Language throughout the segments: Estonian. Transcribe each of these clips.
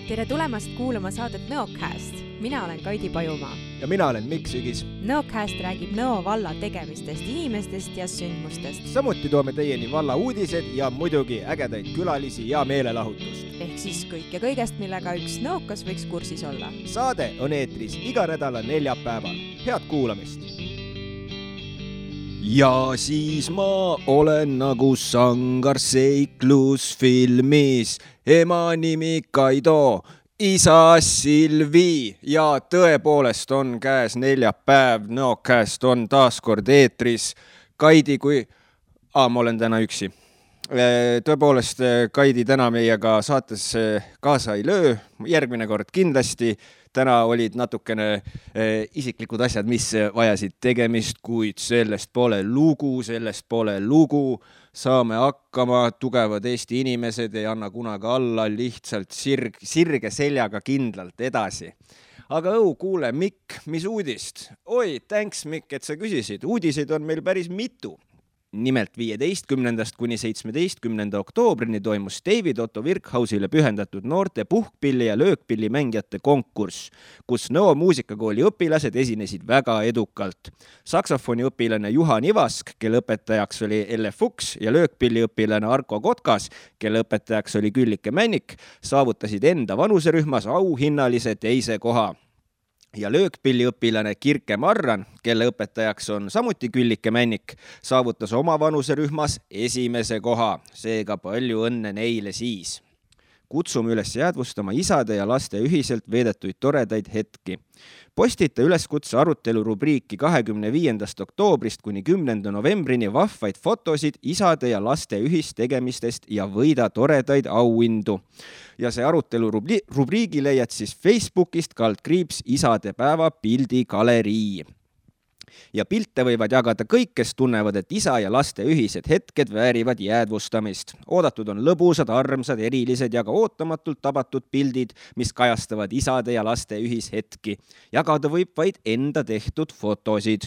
Tere tulemast kuulama saadet Nõocast. Mina olen Kaidi Pajumaa. Ja mina olen Mikk Sügis. Nõocast räägib Nõo valla tegemistest, inimestest ja sündmustest. Samuti toome teieni valla uudised ja muidugi ägedaid külalisi ja meelelahutust. Ehk siis kõik ja kõigest, millega üks nõokas võiks kursis olla. Saade on eetris iga nädala neljapäeval. Head kuulamist! Ja siis ma olen nagu sangar seiklusfilmis. Ema nimi Kaido, isa Silvi ja tõepoolest on käes neljapäev. Nõocast on taas kord eetris. Kaidi ma olen täna üksi. Tõepoolest Kaidi täna meiega saates kaasa ei löö. Järgmine kord kindlasti. Täna olid natukene isiklikud asjad, mis vajasid tegemist, kuid sellest pole lugu. Saame hakkama, tugevad Eesti inimesed ei anna kunagi alla, lihtsalt sirge seljaga kindlalt edasi. Aga kuule, Mikk, mis uudist? Oi, thanks Mikk, et sa küsisid. Uudiseid on meil päris mitu. Nimelt 15. kuni 17. oktoobrini toimus David Otto Virkhausile pühendatud noorte puhkpilli ja löökpilli mängijate konkurss, kus Nõo muusikakooli õpilased esinesid väga edukalt. Saksofoni õpilane Juhan Ivask, kelle õpetajaks oli Elle Fuchs ja löökpilli õpilane Arko Kotkas, kelle õpetajaks oli Küllike Männik, saavutasid enda vanuserühmas auhinnalise teise koha. Ja löökpilli õpilane Kirke Marran, kelle õpetajaks on samuti Küllike Männik, saavutas oma vanuserühmas esimese koha. Seega palju õnne neile siis. Kutsume üles jäädvustama isade ja laste ühiselt veedetuid toredaid hetki. Postita üleskutse arutelu rubriiki 25. oktoobrist kuni 10. novembrini vahvaid fotosid isade ja laste ühistegemistest ja võida toredaid auhindu. Ja see arutelu rubriigi leiad siis Facebookist / isadepäeva pildigalerii. Ja pilte võivad jagada kõik, kes tunnevad, et isa ja laste ühised hetked väärivad jäädvustamist. Oodatud on lõbusad, armsad, erilised ja ka ootamatult tabatud pildid, mis kajastavad isade ja laste ühishetki. Jagada võib vaid enda tehtud fotosid.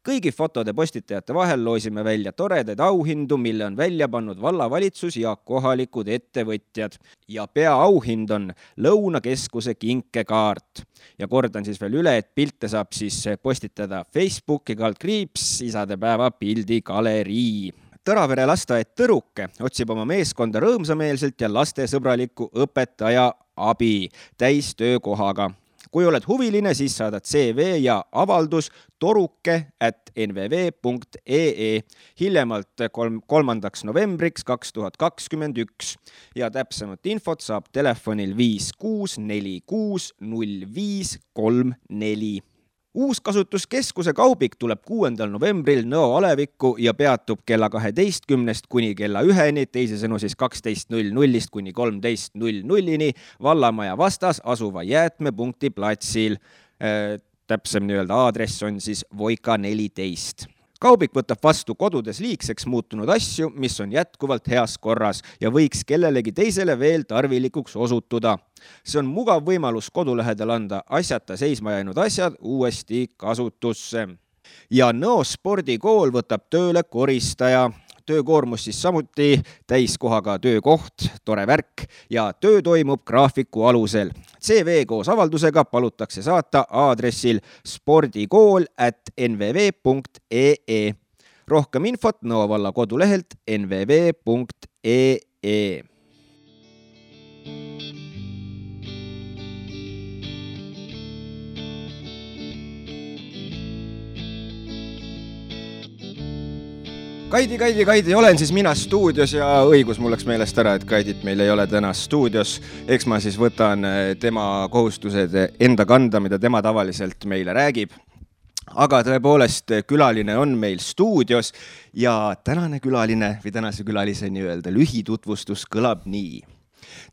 Kõigi fotode postitajate vahel loosime välja toredaid auhindu, mille on välja pannud vallavalitsus ja kohalikud ettevõtjad. Ja peaauhind on Lõunakeskuse kinkekaart. Ja kordan siis veel üle, et pilte saab siis postitada Facebooki / isadepäeva pildigalerii. Tõravere lasteaed Tõruke otsib oma meeskonda rõõmsameelselt ja lastesõbralikku õpetaja abi täistöökohaga. Kui oled huviline, siis saadad CV ja avaldus toruke@nvv.ee hiljemalt 3. novembriks 2021 ja täpsemat infot saab telefonil 5646 0534. Uuskasutuskeskuse kaubik tuleb 6. novembril Nõo alevikku ja peatub kella 12 kuni kella 1, teisisõnu siis 12.00 kuni 13.00 Vallamaja vastas asuva jäätmepunkti platsil. Täpsem aadress on siis Voika 14. Kaubik võtab vastu kodudes liigseks muutunud asju, mis on jätkuvalt heas korras ja võiks kellelegi teisele veel tarvilikuks osutuda. See on mugav võimalus kodulähedal anda asjata seisma jäänud asjad uuesti kasutusse. Ja Nõo spordikool võtab tööle koristaja. Töökoormus siis samuti täiskohaga töökoht, tore värk ja töö toimub graafiku alusel. CV koos avaldusega palutakse saata aadressil spordikool@nvv.ee. Rohkem infot Nõo valla kodulehelt nvv.ee. Kaidi, olen siis mina stuudios ja õigus mul läks meelest ära, et Kaidit meil ei ole täna stuudios. Eks ma siis võtan tema kohustused enda kanda, mida tema tavaliselt meile räägib. Aga tõepoolest külaline on meil stuudios ja tänane külaline või tänase külalise lühitutvustus kõlab nii.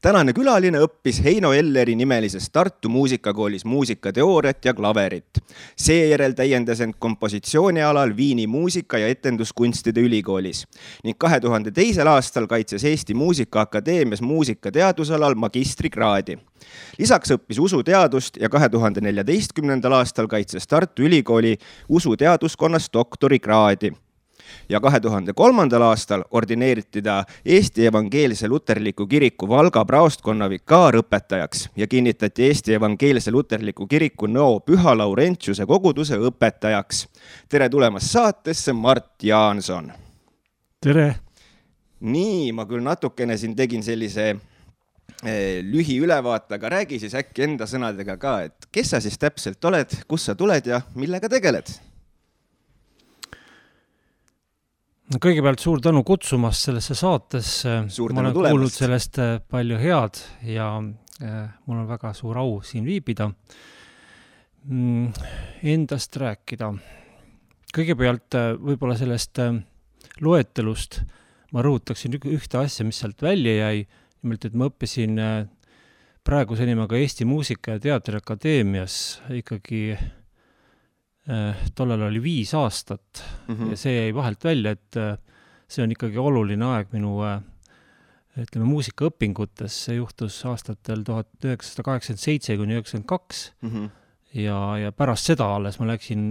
Tänane külaline õppis Heino Elleri nimelises Tartu muusikakoolis muusikateooriat ja klaverit. Seejärel täiendas end kompositsioonialal Viini muusika- ja etenduskunstide ülikoolis ning 2002. aastal kaitses Eesti Muusikaakadeemias muusikateadusalal magistrikraadi. Lisaks õppis usuteadust ja 2014. aastal kaitses Tartu Ülikooli usuteaduskonnas doktorikraadi. Ja 2003. aastal ordineeriti ta Eesti Evangeelse Luterliku Kiriku Valga praostkonna vikaarõpetajaks ja kinnitati Eesti Evangeelse Luterliku Kiriku Nõo Püha Laurentiuse koguduse õpetajaks. Tere tulemast saatesse, Mart Jaanson! Tere! Nii, ma küll natukene siin tegin sellise lühiülevaate, aga räägi siis äkki enda sõnadega ka, et kes sa siis täpselt oled, kus sa tuled ja millega tegeled? Kõigepealt suur tänu kutsumast sellesse saatesse. Ma olen kuulnud sellest palju head ja mul on väga suur au siin viibida. Endast rääkida. Kõigepealt võib-olla sellest loetelust ma rõhutaksin ühte asja, mis sealt välja jäi. Nimelt, et ma õppisin praeguse nimega Eesti Muusika- ja Teatriakadeemias ikkagi tollal oli 5 aastat ja see jäi vahelt välja, et see on ikkagi oluline aeg minu muusikaõpingutes. See juhtus aastatel 1987–1992 ja pärast seda alles ma läksin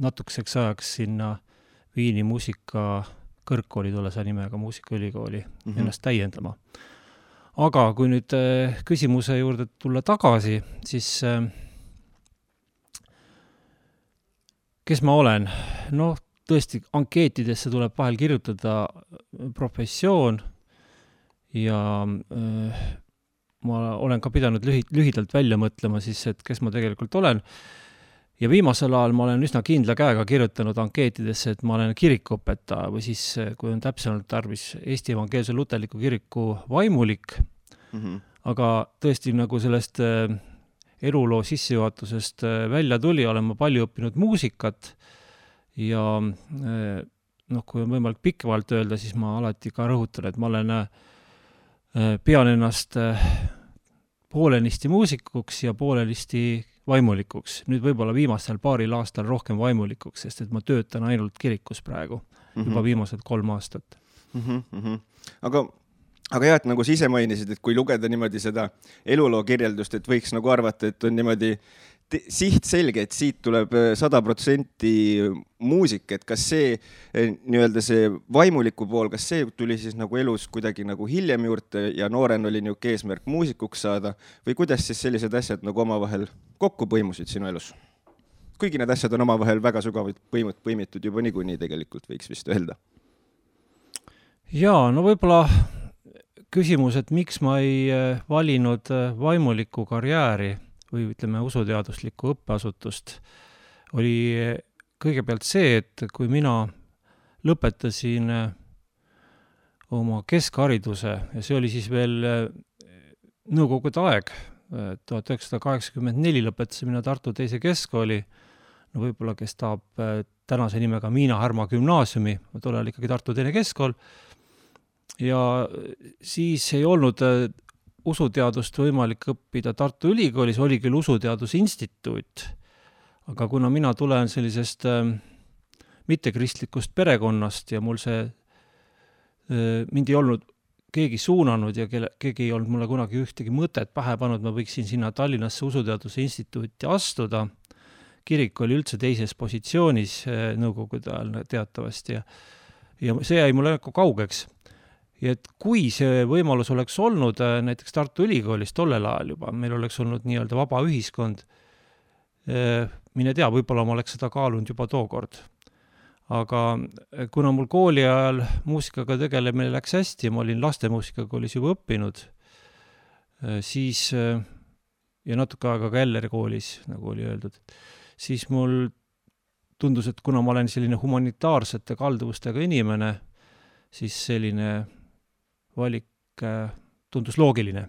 natukeseks ajaks sinna Viini muusikakõrgkooli tollase nimega muusikaülikooli ennast täiendama. Aga kui nüüd küsimuse juurde tulla tagasi, siis kes ma olen? No tõesti, ankeetidesse tuleb vahel kirjutada professioon ja ma olen ka pidanud lühidalt välja mõtlema siis, et kes ma tegelikult olen. Ja viimasel ajal ma olen üsna kindla käega kirjutanud ankeetidesse, et ma olen kirikuõpetaja või siis, kui on täpsemalt tarvis, Eesti Evangeelse Luterliku Kiriku vaimulik. Aga tõesti nagu sellest eluloo sissejuhatusest välja tuli, olen ma palju õppinud muusikat ja kui on võimalik pikemalt öelda, siis ma alati ka rõhutan, et ma olen pean ennast poolenisti muusikuks ja poolenisti vaimulikuks. Nüüd võib-olla viimasel paaril aastal rohkem vaimulikuks, sest et ma töötan ainult kirikus praegu juba viimased 3 aastat. Aga jah, et nagu sa ise mainisid, et kui lugeda niimoodi seda eluloo kirjeldust, et võiks nagu arvata, et on niimoodi siht selge, et siit tuleb 100% muusik, et kas see nii-öelda see vaimuliku pool, kas see tuli siis nagu elus kuidagi nagu hiljem juurde ja nooren oli niuke eesmärk muusikuks saada või kuidas siis sellised asjad nagu omavahel kokku põimusid sinu elus? Kuigi need asjad on omavahel väga sügavalt põimitud juba niikuinii tegelikult võiks vist öelda. Jaa, no võib-olla küsimus, et miks ma ei valinud vaimuliku karjääri või ütleme usuteaduslikku õppeasutust, oli kõigepealt see, et kui mina lõpetasin oma keskhariduse ja see oli siis veel nõukogude aeg, 1984 lõpetasin mina Tartu teise keskkooli, no võib-olla kes tahab tänase nimega Miina Härma gümnaasiumi, tollal ikkagi Tartu teine keskkool, ja siis ei olnud usuteadust võimalik õppida Tartu Ülikoolis, oli küll usuteadusinstituut, aga kuna mina tulen sellisest mittekristlikust perekonnast ja mul see mind ei olnud keegi suunanud ja keegi ei olnud mulle kunagi ühtegi mõtet pähe pannud, ma võiksin sinna Tallinnasse usuteaduse instituuti astuda. Kirik oli üldse teises positsioonis nõukogude ajal teatavasti ja see jäi mulle kaugeks. Ja et kui see võimalus oleks olnud näiteks Tartu Ülikoolis tollel ajal juba, meil oleks olnud nii-öelda vaba ühiskond, mine tea, võib-olla ma oleks seda kaalunud juba tookord. Aga kuna mul kooli ajal muusikaga tegelemine läks hästi ja ma olin lastemuusikakoolis juba õppinud, siis ja natuke aega ka Elleri koolis, nagu oli öeldud, siis mul tundus, et kuna ma olen selline humanitaarsete kalduvustega inimene, siis selline valik tundus loogiline.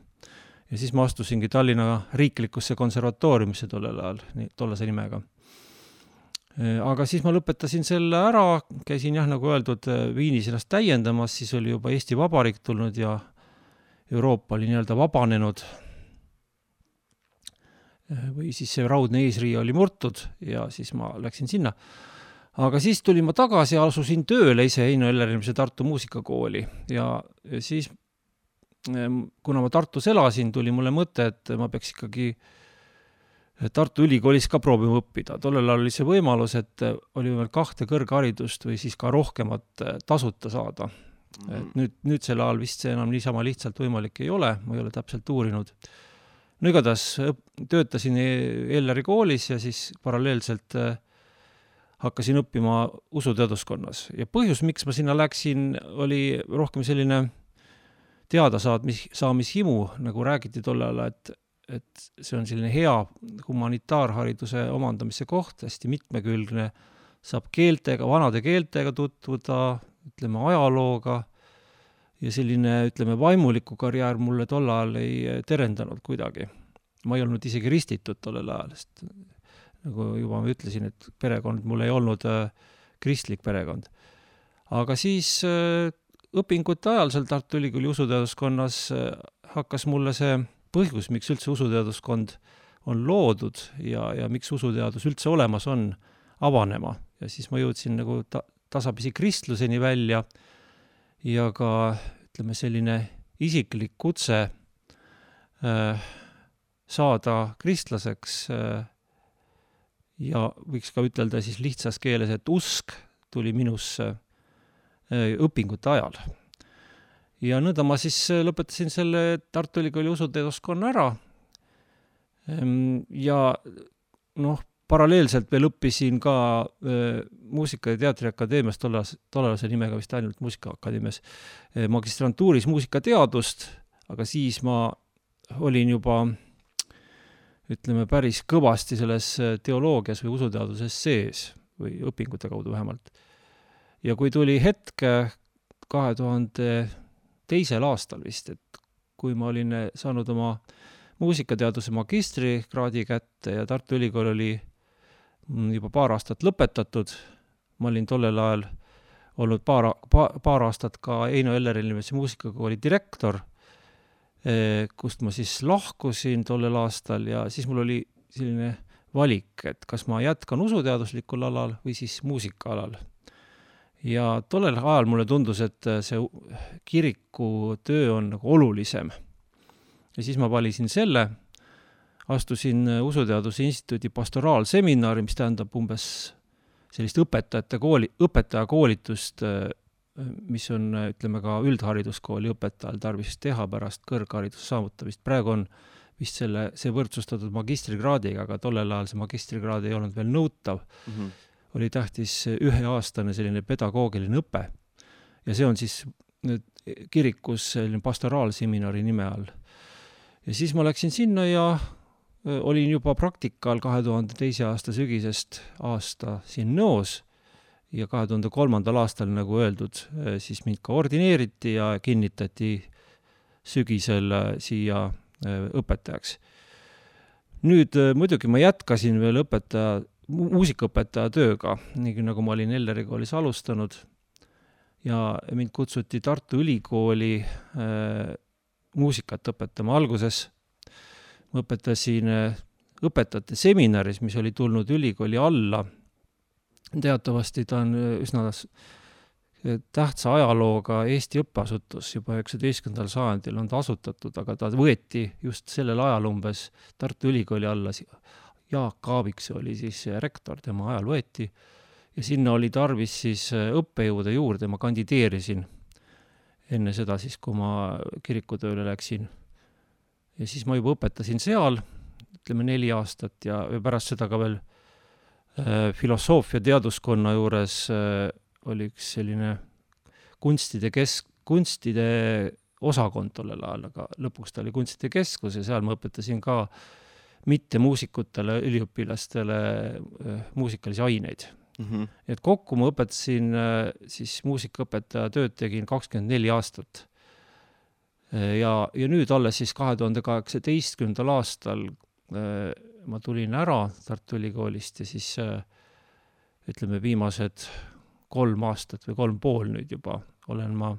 Ja siis ma astusingi Tallinna riiklikusse konservatooriumisse tollel ajal, tollase nimega. Aga siis ma lõpetasin selle ära, käisin jah, nagu öeldud, Viinis ennast täiendamas, siis oli juba Eesti Vabariik tulnud ja Euroopa oli nii-öelda vabanenud või siis see raudne eesriie oli murtud ja siis ma läksin sinna. Aga siis tulin ma tagasi ja asusin tööle ise Heino Ellerimise Tartu muusikakooli ja siis, kuna ma Tartus elasin, tuli mulle mõte, et ma peaks ikkagi Tartu ülikoolis ka proovima õppida. Tollel ajal oli see võimalus, et oli veel 2 kõrgharidust või siis ka rohkemat tasuta saada. Et nüüd selle ajal vist see enam niisama lihtsalt võimalik ei ole, ma ei ole täpselt uurinud. No igatahes töötasin Elleri koolis ja siis paralleelselt hakkasin õppima usuteaduskonnas. Ja põhjus, miks ma sinna läksin, oli rohkem selline teadasaamishimu, nagu räägiti tollel ajal, et see on selline hea humanitaarhariduse omandamise koht, hästi mitmekülgne, saab keeltega, vanade keeltega tutvuda, ütleme ajalooga ja selline, ütleme, vaimuliku karjäär mulle tol ajal ei terendanud kuidagi. Ma ei olnud isegi ristitud tollel ajal, sest nagu juba ma ütlesin, et perekond mul ei olnud kristlik perekond. Aga siis õpingute ajal seal Tartu Ülikooli usuteaduskonnas hakkas mulle see põhjus, miks üldse usuteaduskond on loodud ja miks usuteadus üldse olemas on, avanema. Ja siis ma jõudsin nagu tasapisi kristluseni välja ja ka, ütleme, selline isiklik kutse saada kristlaseks ja võiks ka ütelda siis lihtsas keeles, et usk tuli minusse õpingute ajal. Ja nõnda ma siis lõpetasin selle Tartu Ülikooli usuteaduskonna ära ja paralleelselt veel õppisin ka Muusika- ja Teatriakadeemias, tollase nimega vist ainult Muusikaakadeemias, magistrantuuris muusikateadust, aga siis ma olin juba, ütleme, päris kõvasti selles teoloogias või usuteaduses sees või õpingute kaudu vähemalt. Ja kui tuli hetk 2002. aastal vist, et kui ma olin saanud oma muusikateaduse magistrikraadi kätte ja Tartu Ülikool oli juba paar aastat lõpetatud, ma olin tollel ajal olnud paar aastat ka Heino Ellerimise muusikakooli direktor, kust ma siis lahkusin tollel aastal ja siis mul oli selline valik, et kas ma jätkan usuteaduslikul alal või siis muusikaalal. Ja tollel ajal mulle tundus, et see kiriku töö on nagu olulisem. Ja siis ma valisin selle, astusin Usuteaduse Instituudi pastoraalseminari, mis tähendab umbes sellist õpetajakoolitust, mis on, ütleme, ka üldhariduskooli õpetajal tarvis teha pärast kõrghariduse saavutamist. Praegu on vist see võrdsustatud magistrikraadiga, aga tollel ajal see magistrikraad ei olnud veel nõutav. Oli tähtis 1-aastane selline pedagoogiline õpe. Ja see on siis kirikus selline pastoraalseminari nime all. Ja siis ma läksin sinna ja olin juba praktikal 2002. aasta sügisest aasta siin Nõos ja 2003. aastal, nagu öeldud, siis mind ka ordineeriti ja kinnitati sügisel siia õpetajaks. Nüüd muidugi ma jätkasin veel muusikaõpetaja tööga, nii nagu ma olin Elleri koolis alustanud ja mind kutsuti Tartu Ülikooli muusikat õpetama. Alguses ma õpetasin õpetajate seminaris, mis oli tulnud ülikooli alla. Teatavasti ta on üsna tähtsa ajalooga Eesti õppeasutus, juba 19. sajandil on ta asutatud, aga ta võeti just sellel ajal umbes Tartu Ülikooli alla. Jaak Aaviksoo oli siis rektor, tema ajal võeti ja sinna oli tarvis siis õppejõude juurde, ma kandideerisin enne seda siis, kui ma kirikutööle läksin. Ja siis ma juba õpetasin seal, ütleme 4 aastat ja pärast seda ka veel filosoofia teaduskonna juures oli üks selline kunstide osakond tollel ajal, aga lõpuks ta oli kunstide keskus ja seal ma õpetasin ka mitte muusikutele, üliõpilastele muusikalisi aineid. Et kokku ma õpetasin siis muusikaõpetaja tööd tegin 24 aastat. Ja nüüd alles siis 2018. aastal ma tulin ära Tartu Ülikoolist ja siis ütleme viimased 3 aastat või 3,5 nüüd juba olen ma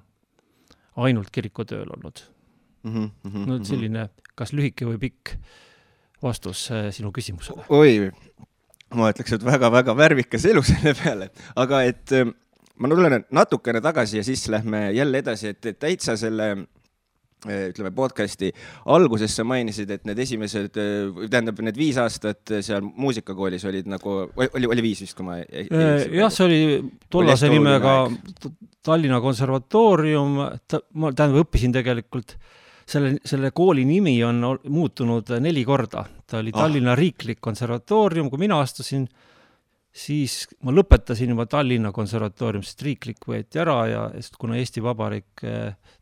ainult kirikutööl olnud. No selline, kas lühike või pikk vastus sinu küsimusele? Oi, ma ütleks, et väga-väga värvikas elu selle peale, aga et ma tulen natukene tagasi ja siis lähme jälle edasi, et täitsa selle ütleme podcasti alguses sa mainisid, et need esimesed, tähendab need 5 aastat seal muusikakoolis olid nagu, oli 5 vist, kui ma jah, see oli tollase nimega Tallinna Konservatoorium, ma tähendab õppisin tegelikult, selle kooli nimi on muutunud 4 korda, ta oli Tallinna Riiklik Konservatoorium, kui mina astusin, siis ma lõpetasin juba Tallinna Konservatoorium, sest riiklik võeti ära ja kuna Eesti Vabariik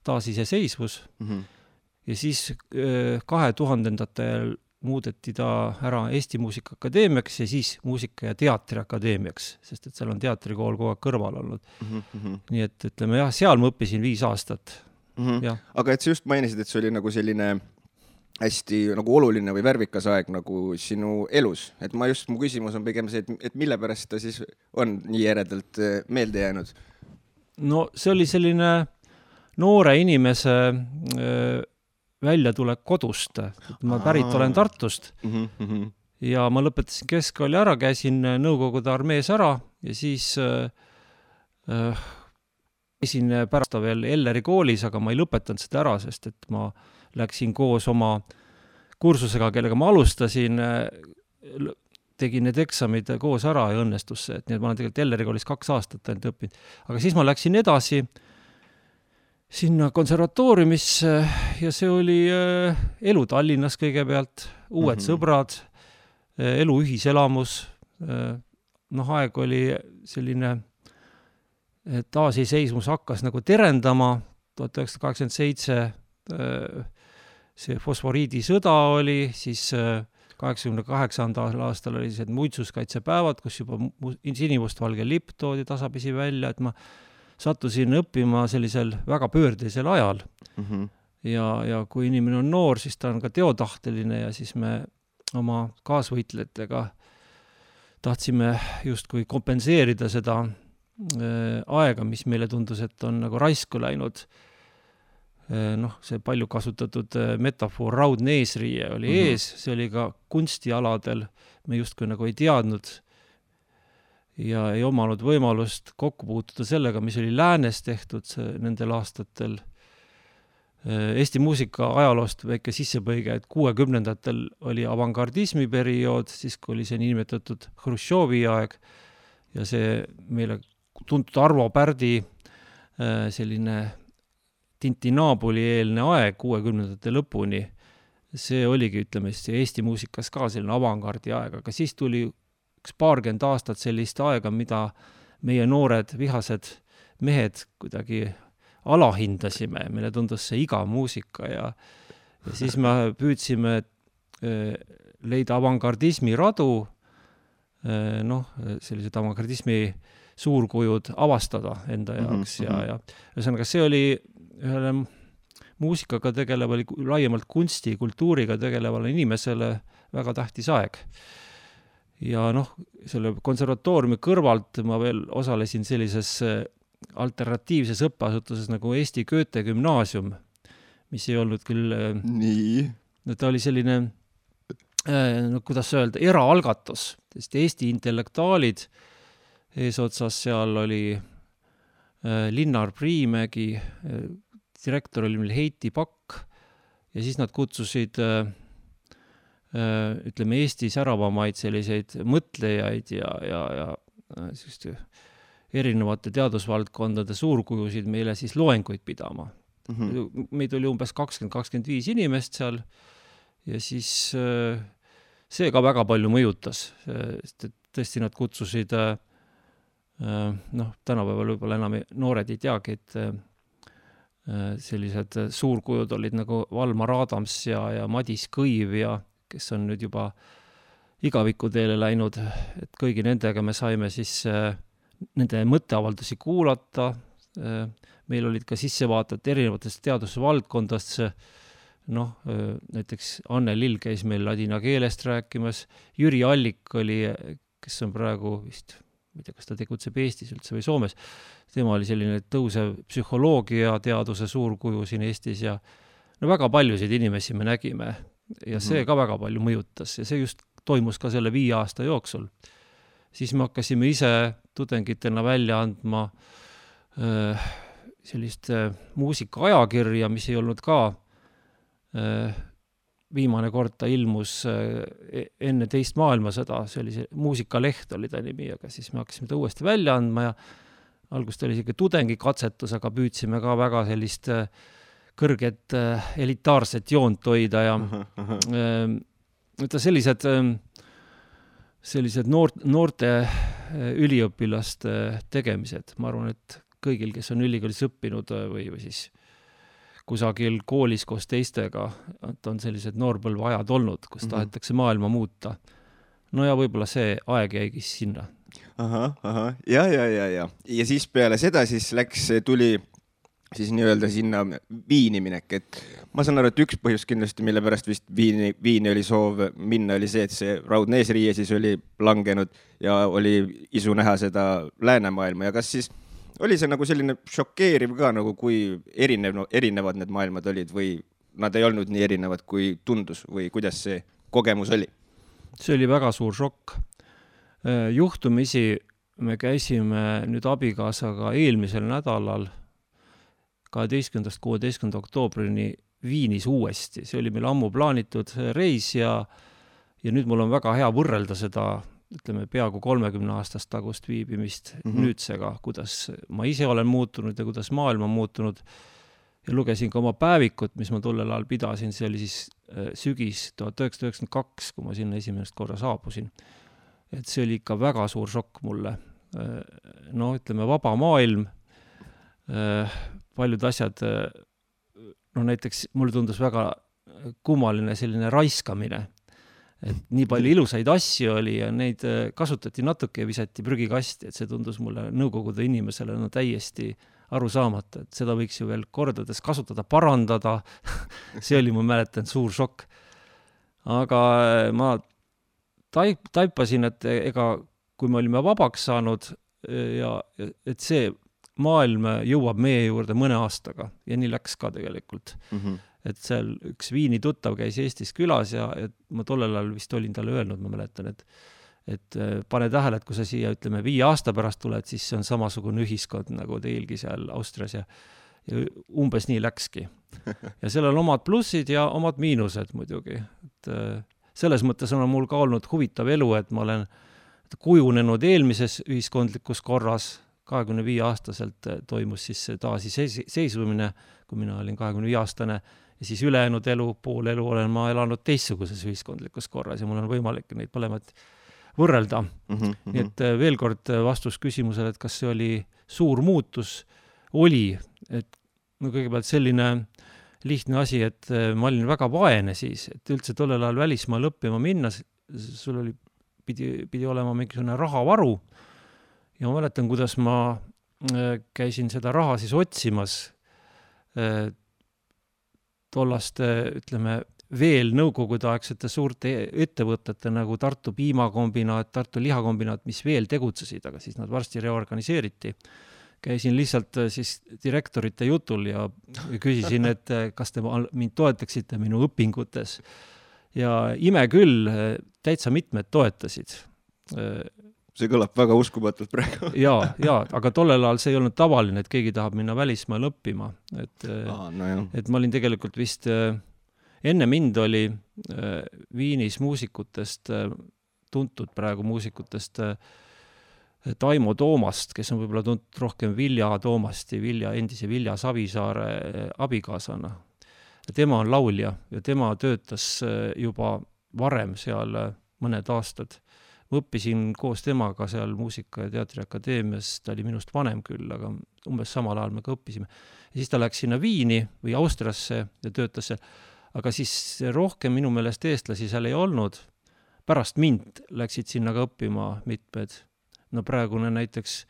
taasiseseisvus ja siis 2000-ndatel muudeti ta ära Eesti Muusikaakadeemiaks ja siis Muusika- ja Teatriakadeemiaks, sest et seal on teatrikool kogu aeg kõrval olnud. Nii et ütleme jah, seal ma õppisin 5 aastat. Aga et sa just mainisid, et see oli nagu selline hästi nagu oluline või värvikas aeg nagu sinu elus. Et mu küsimus on pigem see, et mille pärast ta siis on nii eredalt meelde jäänud? No see oli selline noore inimese väljatulek kodust. Ma pärit olen Tartust ja ma lõpetasin keskkooli ära, käisin Nõukogude armees ära ja siis käisin pärast veel Elleri koolis, aga ma ei lõpetanud seda ära, sest et ma läksin koos oma kursusega, kellega ma alustasin, tegin need eksamid koos ära ja õnnestus see, et nii et ma olen tegelikult Elleri koolis 2 aastat ainult õppinud. Aga siis ma läksin edasi sinna konservatooriumisse ja see oli elu Tallinnas kõigepealt, uued sõbrad, elu ühiselamus, aeg oli selline, taasiseismus hakkas nagu terendama, 1987 see fosforiidisõda oli, siis 88. aastal oli see muitsuskaitsepäevad, kus juba sinimustvalge lipp toodi tasapisi välja, et ma sattusin õppima sellisel väga pöördelisel ajal. Ja kui inimene on noor, siis ta on ka teotahteline ja siis me oma kaasvõitlejatega tahtsime justkui kompenseerida seda aega, mis meile tundus, et on nagu raisku läinud. See palju kasutatud metafoor raudne eesriie oli ees, see oli ka kunstialadel, me justkui nagu ei teadnud ja ei omanud võimalust kokku puutuda sellega, mis oli läänes tehtud nendel aastatel. Eesti muusika ajaloost väike sissepõige, et 60-ndatel oli avangardismi periood, siis kui oli see niinimetatud Hruštšovi aeg ja see meile tuntud Arvo Pärdi selline Tintinaabuli-eelne aeg 60-ndate lõpuni, see oligi, ütleme, Eesti muusikas ka selline avangardi aeg, aga siis tuli 20 aastat sellist aega, mida meie noored vihased mehed kuidagi alahindasime, meile tundus see iga muusika ja siis me püüdsime leida avangardismi radu, sellised avangardismi suurkujud avastada enda jaoks ja ühesõnaga see oli ühele muusikaga tegelevale, laiemalt kunsti, kultuuriga tegelevale inimesele väga tähtis aeg. Ja selle konservatooriumi kõrvalt ma veel osalesin sellises alternatiivses õppeasutuses nagu Eesti Goethe gümnaasium, mis ei olnud küll... Nii? Ta oli selline, kuidas öelda, eraalgatus, sest Eesti intellektuaalid eesotsas seal oli Linnar Priimägi, direktor oli meil Heiti Pakk ja siis nad kutsusid ütleme Eesti säravamaid selliseid mõtlejaid ja erinevate teadusvaldkondade suurkujusid meile siis loenguid pidama. Meid oli umbes 20-25 inimest seal ja siis see ka väga palju mõjutas, sest tõesti nad kutsusid tänapäeval võib-olla enam noored ei teagi, et sellised suurkujud olid nagu Valmar Adams ja Madis Kõiv ja kes on nüüd juba igavikuteele läinud, et kõigi nendega me saime siis nende mõtteavaldusi kuulata. Meil olid ka sissevaated erinevatest teadusvaldkondast, näiteks Anne Lill käis meil ladina keelest rääkimas, Jüri Allik oli, kes on praegu vist, ma ei tea, kas ta tegutseb Eestis üldse või Soomes, tema oli selline tõusev psühholoogia teaduse suurkuju siin Eestis ja no väga paljusid inimesi me nägime ja see ka väga palju mõjutas ja see just toimus ka selle 5 aasta jooksul. Siis me hakkasime ise tudengitena välja andma sellist muusikaajakirja, mis ei olnud ka viimane kord ta ilmus enne teist maailmasõda, see oli see muusikaleht oli ta nimi, aga siis me hakkasime ta uuesti välja andma ja algust oli siuke tudengikatsetus, aga püüdsime ka väga sellist kõrget elitaarset joont hoida ja sellised noorte üliõpilaste tegemised. Ma arvan, et kõigil, kes on ülikoolis õppinud või siis kusagil koolis koos teistega, et on sellised noorpõlve ajad olnud, kus tahetakse maailma muuta. No ja võib-olla see aeg jäigi sinna. Ja. Ja siis peale seda siis tuli siis nii-öelda sinna Viini minek, et ma saan aru, et üks põhjus kindlasti, mille pärast vist Viini oli soov minna, oli see, et see raudne eesriie siis oli langenud ja oli isu näha seda läänemaailma ja kas siis oli see nagu selline šokeeriv ka, nagu kui erinevad need maailmad olid või nad ei olnud nii erinevad, kui tundus või kuidas see kogemus oli? See oli väga suur šokk. Juhtumisi me käisime nüüd abikaasaga eelmisel nädalal 12.–16. oktoobrini Viinis uuesti. See oli meil ammu plaanitud reis ja nüüd mul on väga hea võrrelda seda ütleme, peaaegu 30 aastast tagust viibimist nüüdsega, kuidas ma ise olen muutunud ja kuidas maailm on muutunud. Ja lugesin ka oma päevikut, mis ma tollel ajal pidasin, see oli siis sügis 1992, kui ma sinna esimest korra saabusin. Et see oli ikka väga suur šokk mulle. No ütleme, vaba maailm, paljud asjad, no näiteks mulle tundus väga kummaline selline raiskamine, et nii palju ilusaid asju oli ja neid kasutati natuke ja visati prügikasti, et see tundus mulle nõukogude inimesele no täiesti aru saamata, et seda võiks ju veel kordades kasutada, parandada. See oli, ma mäletan, suur šokk. Aga ma taipasin, et ega kui me olime vabaks saanud ja et see maailm jõuab meie juurde mõne aastaga ja nii läks ka tegelikult. Et seal üks Viini tuttav käis Eestis külas ja ma tollel ajal vist olin talle öelnud, ma mäletan, et pane tähele, et kui sa siia, ütleme, 5 aasta pärast tuled, siis see on samasugune ühiskond nagu teilgi seal Austrias ja umbes nii läkski. Ja seal on omad plussid ja omad miinused muidugi. Et selles mõttes on mul ka olnud huvitav elu, et ma olen kujunenud eelmises ühiskondlikus korras, 25-aastaselt toimus siis taasiseisvumine, kui mina olin 25-aastane, ja siis ülejäänud elu, pool elu olen ma elanud teistsuguses ühiskondlikus korras ja mul on võimalik neid mõlemad võrrelda. Nii et veel kord vastus küsimusele, et kas see oli suur muutus, oli, et no kõigepealt selline lihtne asi, et ma olin väga vaene siis, et üldse tollel ajal välismaal õppima minna, sul oli, pidi olema mingisugune rahavaru ja ma mäletan, kuidas ma käisin seda raha siis otsimas tollast, ütleme, veel nõukogudeaegsete suurte ettevõtete nagu Tartu piimakombinaat, Tartu lihakombinaat, mis veel tegutsesid, aga siis nad varsti reorganiseeriti. Käisin lihtsalt siis direktorite jutul ja küsisin, et kas te mind toetaksite minu õpingutes. Ja ime küll, täitsa mitmed toetasid. See kõlab väga uskumatult praegu. ja, aga tollel ajal see ei olnud tavaline, et keegi tahab minna välismaal õppima. Et ma olin tegelikult vist, enne mind oli Viinis muusikutest, tuntud praegu muusikutest Taimo Toomast, kes on võib-olla tuntud rohkem Vilja Toomasti, endise Vilja Savisaare abikaasana. Tema on laulja ja tema töötas juba varem seal mõned aastad. Ma õppisin koos temaga seal Muusika- ja Teatriakadeemias, ta oli minust vanem küll, aga umbes samal ajal me ka õppisime. Ja siis ta läks sinna Viini või Austriasse ja töötas seal, aga siis rohkem minu meelest eestlasi seal ei olnud. Pärast mind läksid sinna ka õppima mitmed. No praegune näiteks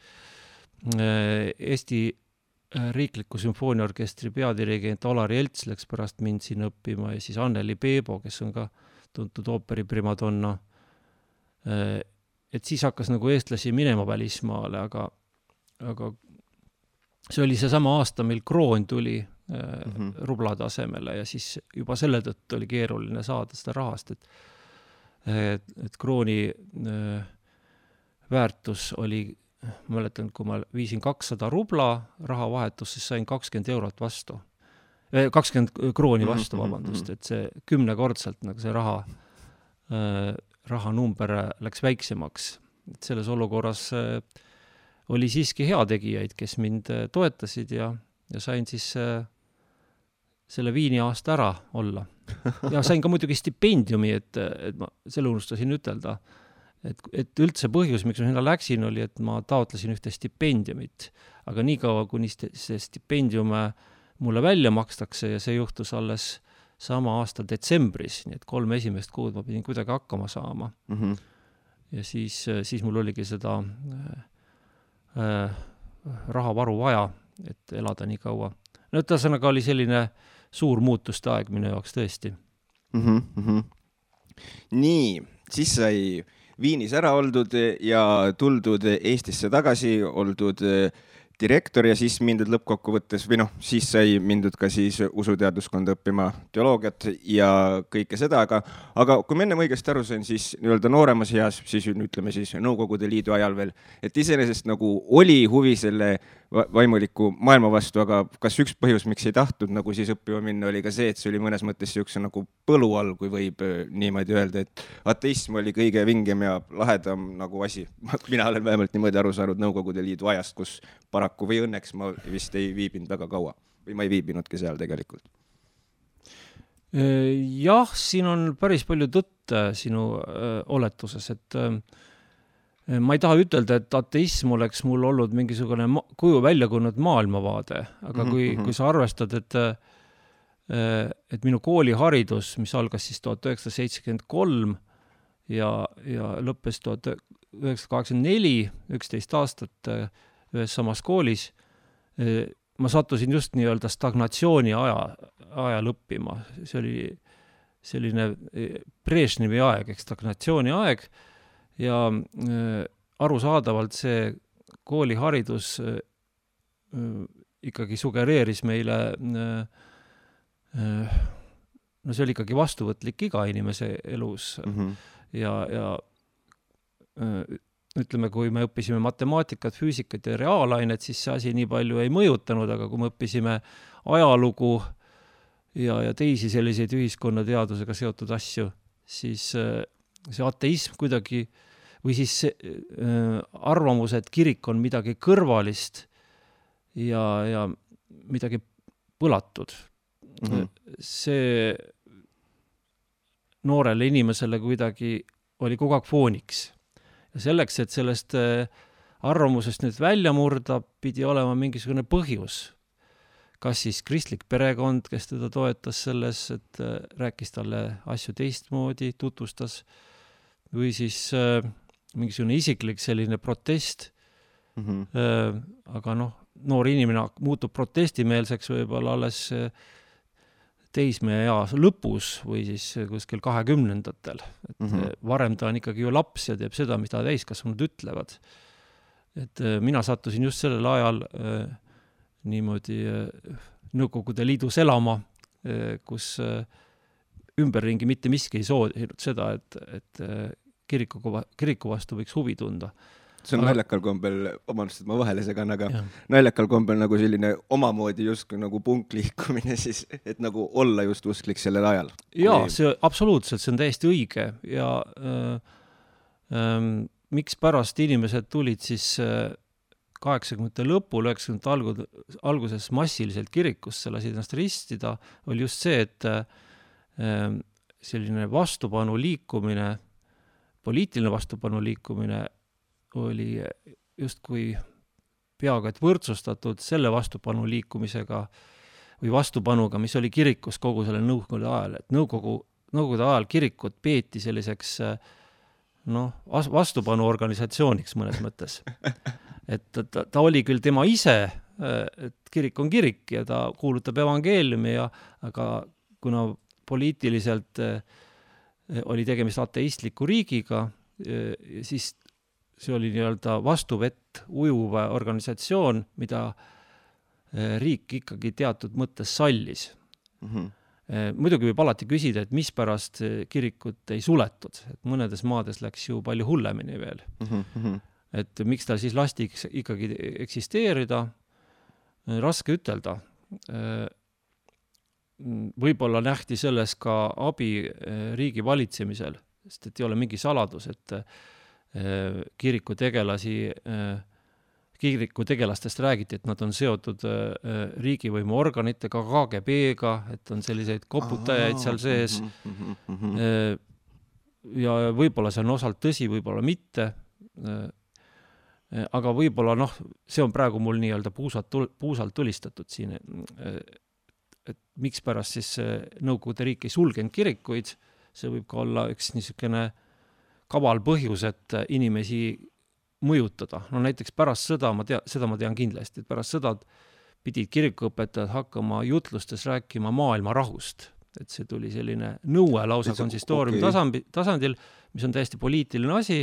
Eesti Riikliku sümfooniaorkestri peadirigent Olari Elts läks pärast mind sinna õppima ja siis Anneli Peebo, kes on ka tuntud ooperi primadonna. Et siis hakkas nagu eestlasi minema välismaale, aga see oli see sama aasta, mil Kroon tuli rublade asemele ja siis juba selle tõttu oli keeruline saada seda rahast, et krooni väärtus oli, ma mäletan, kui ma viisin 200 rubla rahavahetus, siis sain 20 eurot vastu. 20 krooni vastu, vabandust, et see 10-kordselt nagu see rahanumber läks väiksemaks. Et selles olukorras oli siiski heategijaid, kes mind toetasid ja sain siis selle Viini aasta ära olla. Ja sain ka muidugi stipendiumi, et ma selle unustasin ütelda, et üldse põhjus, miks ma sinna läksin, oli, et ma taotlesin ühte stipendiumit. Aga nii kaua, kuni see stipendium mulle välja makstakse ja see juhtus alles sama aasta detsembris, nii et 3 esimest kuud ma pidin kuidagi hakkama saama. Ja siis mul oligi seda rahavaru vaja, et elada nii kaua. No ühesõnaga oli selline suur muutuste aeg minu jaoks tõesti. Nii, siis sai Viinis ära oldud ja tuldud Eestisse tagasi, oldud direktor ja siis mindud lõppkokkuvõttes, või siis sai mindud ka siis usuteaduskonda õppima teoloogiat ja kõike seda, aga kui ma enne õigesti aru sain, siis nii-öelda nooremas eas, siis ütleme siis Nõukogude Liidu ajal veel, et iseenesest nagu oli huvi selle vaimuliku maailma vastu, aga kas üks põhjus, miks ei tahtnud nagu siis õppima minna, oli ka see, et see oli mõnes mõttes siukse nagu põlu all, kui võib niimoodi öelda, et ateism oli kõige vingem ja lahedam nagu asi. Mina olen vähemalt niimoodi aru saanud Nõukogude Liidu ajast, kus paraku või õnneks ma vist ei viibinud väga kaua või ma ei viibinudki seal tegelikult. Jah, siin on päris palju tõtt sinu oletuses, et ma ei taha ütelda, et ateism oleks mul olnud mingisugune kuju välja kujunenud maailmavaade, aga kui sa arvestad, et minu kooliharidus, mis algas siis 1973 ja lõppes 1984, 11 aastat ühes samas koolis, ma sattusin just nii-öelda stagnatsiooni ajal õppima. See oli selline Brežnevi aeg, stagnatsiooni aeg ja arusaadavalt see kooliharidus ikkagi sugereeris meile, no see oli ikkagi vastuvõtlik iga inimese elus ja ütleme, kui me õppisime matemaatikat, füüsikat ja reaalainet, siis see asi nii palju ei mõjutanud, aga kui me õppisime ajalugu ja teisi selliseid ühiskonnateadusega seotud asju, siis see ateism kuidagi või siis arvamus, et kirik on midagi kõrvalist ja midagi põlatud. See noorele inimesele kuidagi oli kogu aeg fooniks. Ja selleks, et sellest arvamusest nüüd välja murda, pidi olema mingisugune põhjus. Kas siis kristlik perekond, kes teda toetas selles, et rääkis talle asju teistmoodi, tutvustas, või siis mingisugune isiklik selline protest. Aga noor inimene muutub protestimeelseks võib-olla alles teismeea lõpus või siis kuskil 20-ndatel. Varem ta on ikkagi ju laps ja teeb seda, mida täiskasvanud ütlevad. Et mina sattusin just sellel ajal niimoodi Nõukogude Liidus elama, kus ümberringi mitte miski ei soodinud seda, et kiriku vastu võiks huvi tunda. See on naljakal kombel, vabandust, et ma vahele segan, aga naljakal kombel nagu selline omamoodi just nagu punkliikumine siis, et nagu olla just usklik sellel ajal. Jaa, see absoluutselt, see on täiesti õige ja miks pärast inimesed tulid siis 80. lõpul, 90. alguses massiliselt kirikusse lasid ennast ristida, oli just see, et selline vastupanu liikumine, poliitiline vastupanu liikumine oli justkui peaaegu et võrdsustatud selle vastupanu liikumisega või vastupanuga, mis oli kirikus kogu selle nõukogude ajal. Et nõukogude ajal kirikut peeti selliseks vastupanu organisatsiooniks mõnes mõttes. Et ta oli küll tema ise, et kirik on kirik ja ta kuulutab evangeeliumi, aga kuna poliitiliselt oli tegemist ateistliku riigiga, siis see oli nii-öelda vastuvett ujuv organisatsioon, mida riik ikkagi teatud mõttes sallis. Muidugi võib alati küsida, et mis pärast kirikut ei suletud, et mõnedes maades läks ju palju hullemini veel. Et miks ta siis lasti ikkagi eksisteerida, raske ütelda. Võib-olla nähti selles ka abi riigi valitsemisel, sest et ei ole mingi saladus, et kirikutegelastest räägiti, et nad on seotud riigivõimu organitega, KGB-ga, et on selliseid koputajaid seal sees. Ja võib-olla see on osalt tõsi, võib-olla mitte. Aga võib-olla, see on praegu mul nii-öelda puusalt tulistatud siin, et miks pärast siis Nõukogude riik ei sulgenud kirikuid, see võib ka olla üks niisugune kaval põhjus, et inimesi mõjutada. Näiteks pärast sõda, seda ma tean kindlasti, et pärast sõda pidid kirikuõpetajad hakkama jutlustes rääkima maailma rahust. Et see tuli selline nõue lausa konsistooriumi tasandil, mis on täiesti poliitiline asi,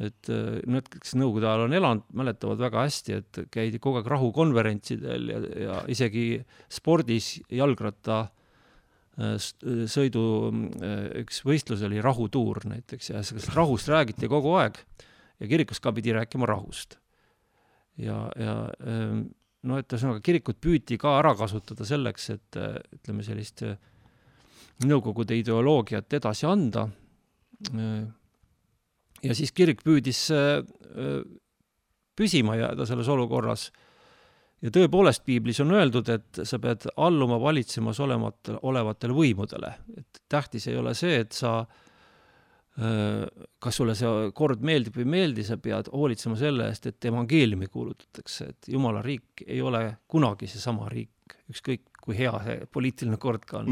et need, kes Nõukogude ajal on elanud, mäletavad väga hästi, et käidi kogu aeg rahukonverentsidel ja isegi spordis jalgratta sõidu üks võistlus oli rahutuur näiteks ja rahust räägiti kogu aeg ja kirikus ka pidi rääkima rahust. Et kirikut püüti ka ära kasutada selleks, et ütleme sellist Nõukogude ideoloogiat edasi anda. Ja siis kirik püüdis püsima jääda selles olukorras. Ja tõepoolest piiblis on öeldud, et sa pead alluma valitsemas olevatele võimudele. Et tähtis ei ole see, et sa, kas sulle see kord meeldib või meeldi, sa pead hoolitsema selle eest, et evangeeliumi kuulutatakse. Et Jumala riik ei ole kunagi see sama riik, ükskõik kui hea see poliitiline kord ka on.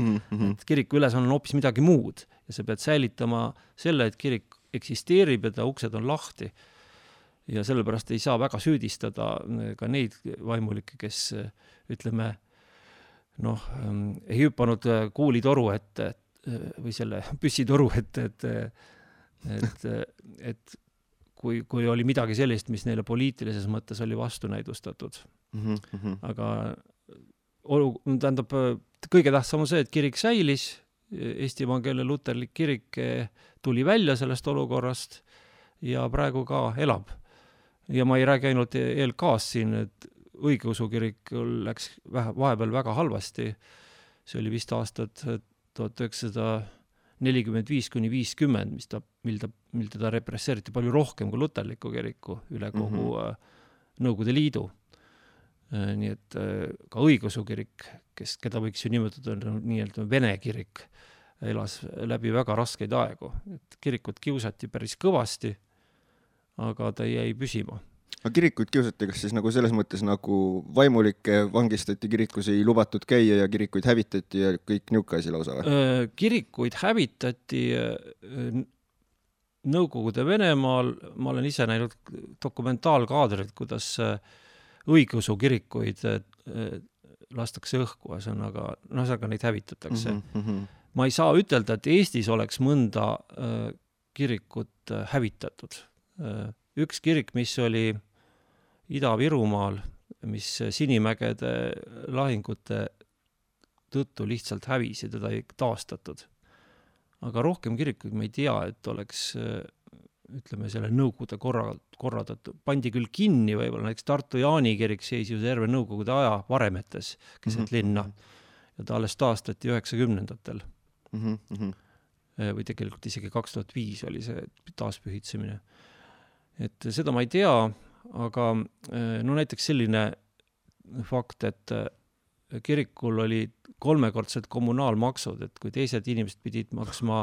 Et kiriku ülesanne on hoopis midagi muud ja sa pead säilitama selle, et kirik eksisteerib ja ta uksed on lahti. Ja sellepärast ei saa väga süüdistada ka neid vaimulikke, kes, ütleme, ei hüppanud kuulitoru ette või selle püssitoru ette, et kui oli midagi sellist, mis neile poliitilises mõttes oli vastunäidustatud. Aga tähendab, kõige tähtsam on see, et kirik säilis, Eesti Evangeelne Luterlik kirik tuli välja sellest olukorrast ja praegu ka elab. Ja ma ei räägi ainult ELK-st siin, et õigeusu kirik läks vahepeal väga halvasti. See oli vist aastad 1945–50, mil teda represseeriti palju rohkem kui luterliku kiriku üle kogu Nõukogude Liidu. Nii et ka õigeusu kirik, keda võiks ju nimetada nii-öelda vene kirik, elas läbi väga raskeid aegu. Et kirikut kiusati päris kõvasti, aga ta jäi püsima. Aga kirikuid kiusati, kas siis nagu selles mõttes nagu vaimulikke vangistati, kirikus ei lubatud käia ja kirikuid hävitati ja kõik niuka asi lausa või? Kirikuid hävitati Nõukogude Venemaal, ma olen ise näinud dokumentaalkaadrit, kuidas õigeusu kirikuid lastakse õhku, aga neid hävitatakse. Ma ei saa ütelda, et Eestis oleks mõnda kirikut hävitatud. Üks kirik, mis oli Ida-Virumaal, mis Sinimägede lahingute tõttu lihtsalt hävis ja teda ei taastatud. Aga rohkem kirikuid ma ei tea, et oleks, ütleme, selle Nõukogude korraldatud. Pandi küll kinni võib-olla, näiteks Tartu Jaani kirik seis ju terve Nõukogude aja varemetes keset linna ja ta alles taastati 90-ndatel. Või tegelikult isegi 2005 oli see taaspühitsemine. Et seda ma ei tea, aga näiteks selline fakt, et kirikul oli 3-kordsed kommunaalmaksud, et kui teised inimesed pidid maksma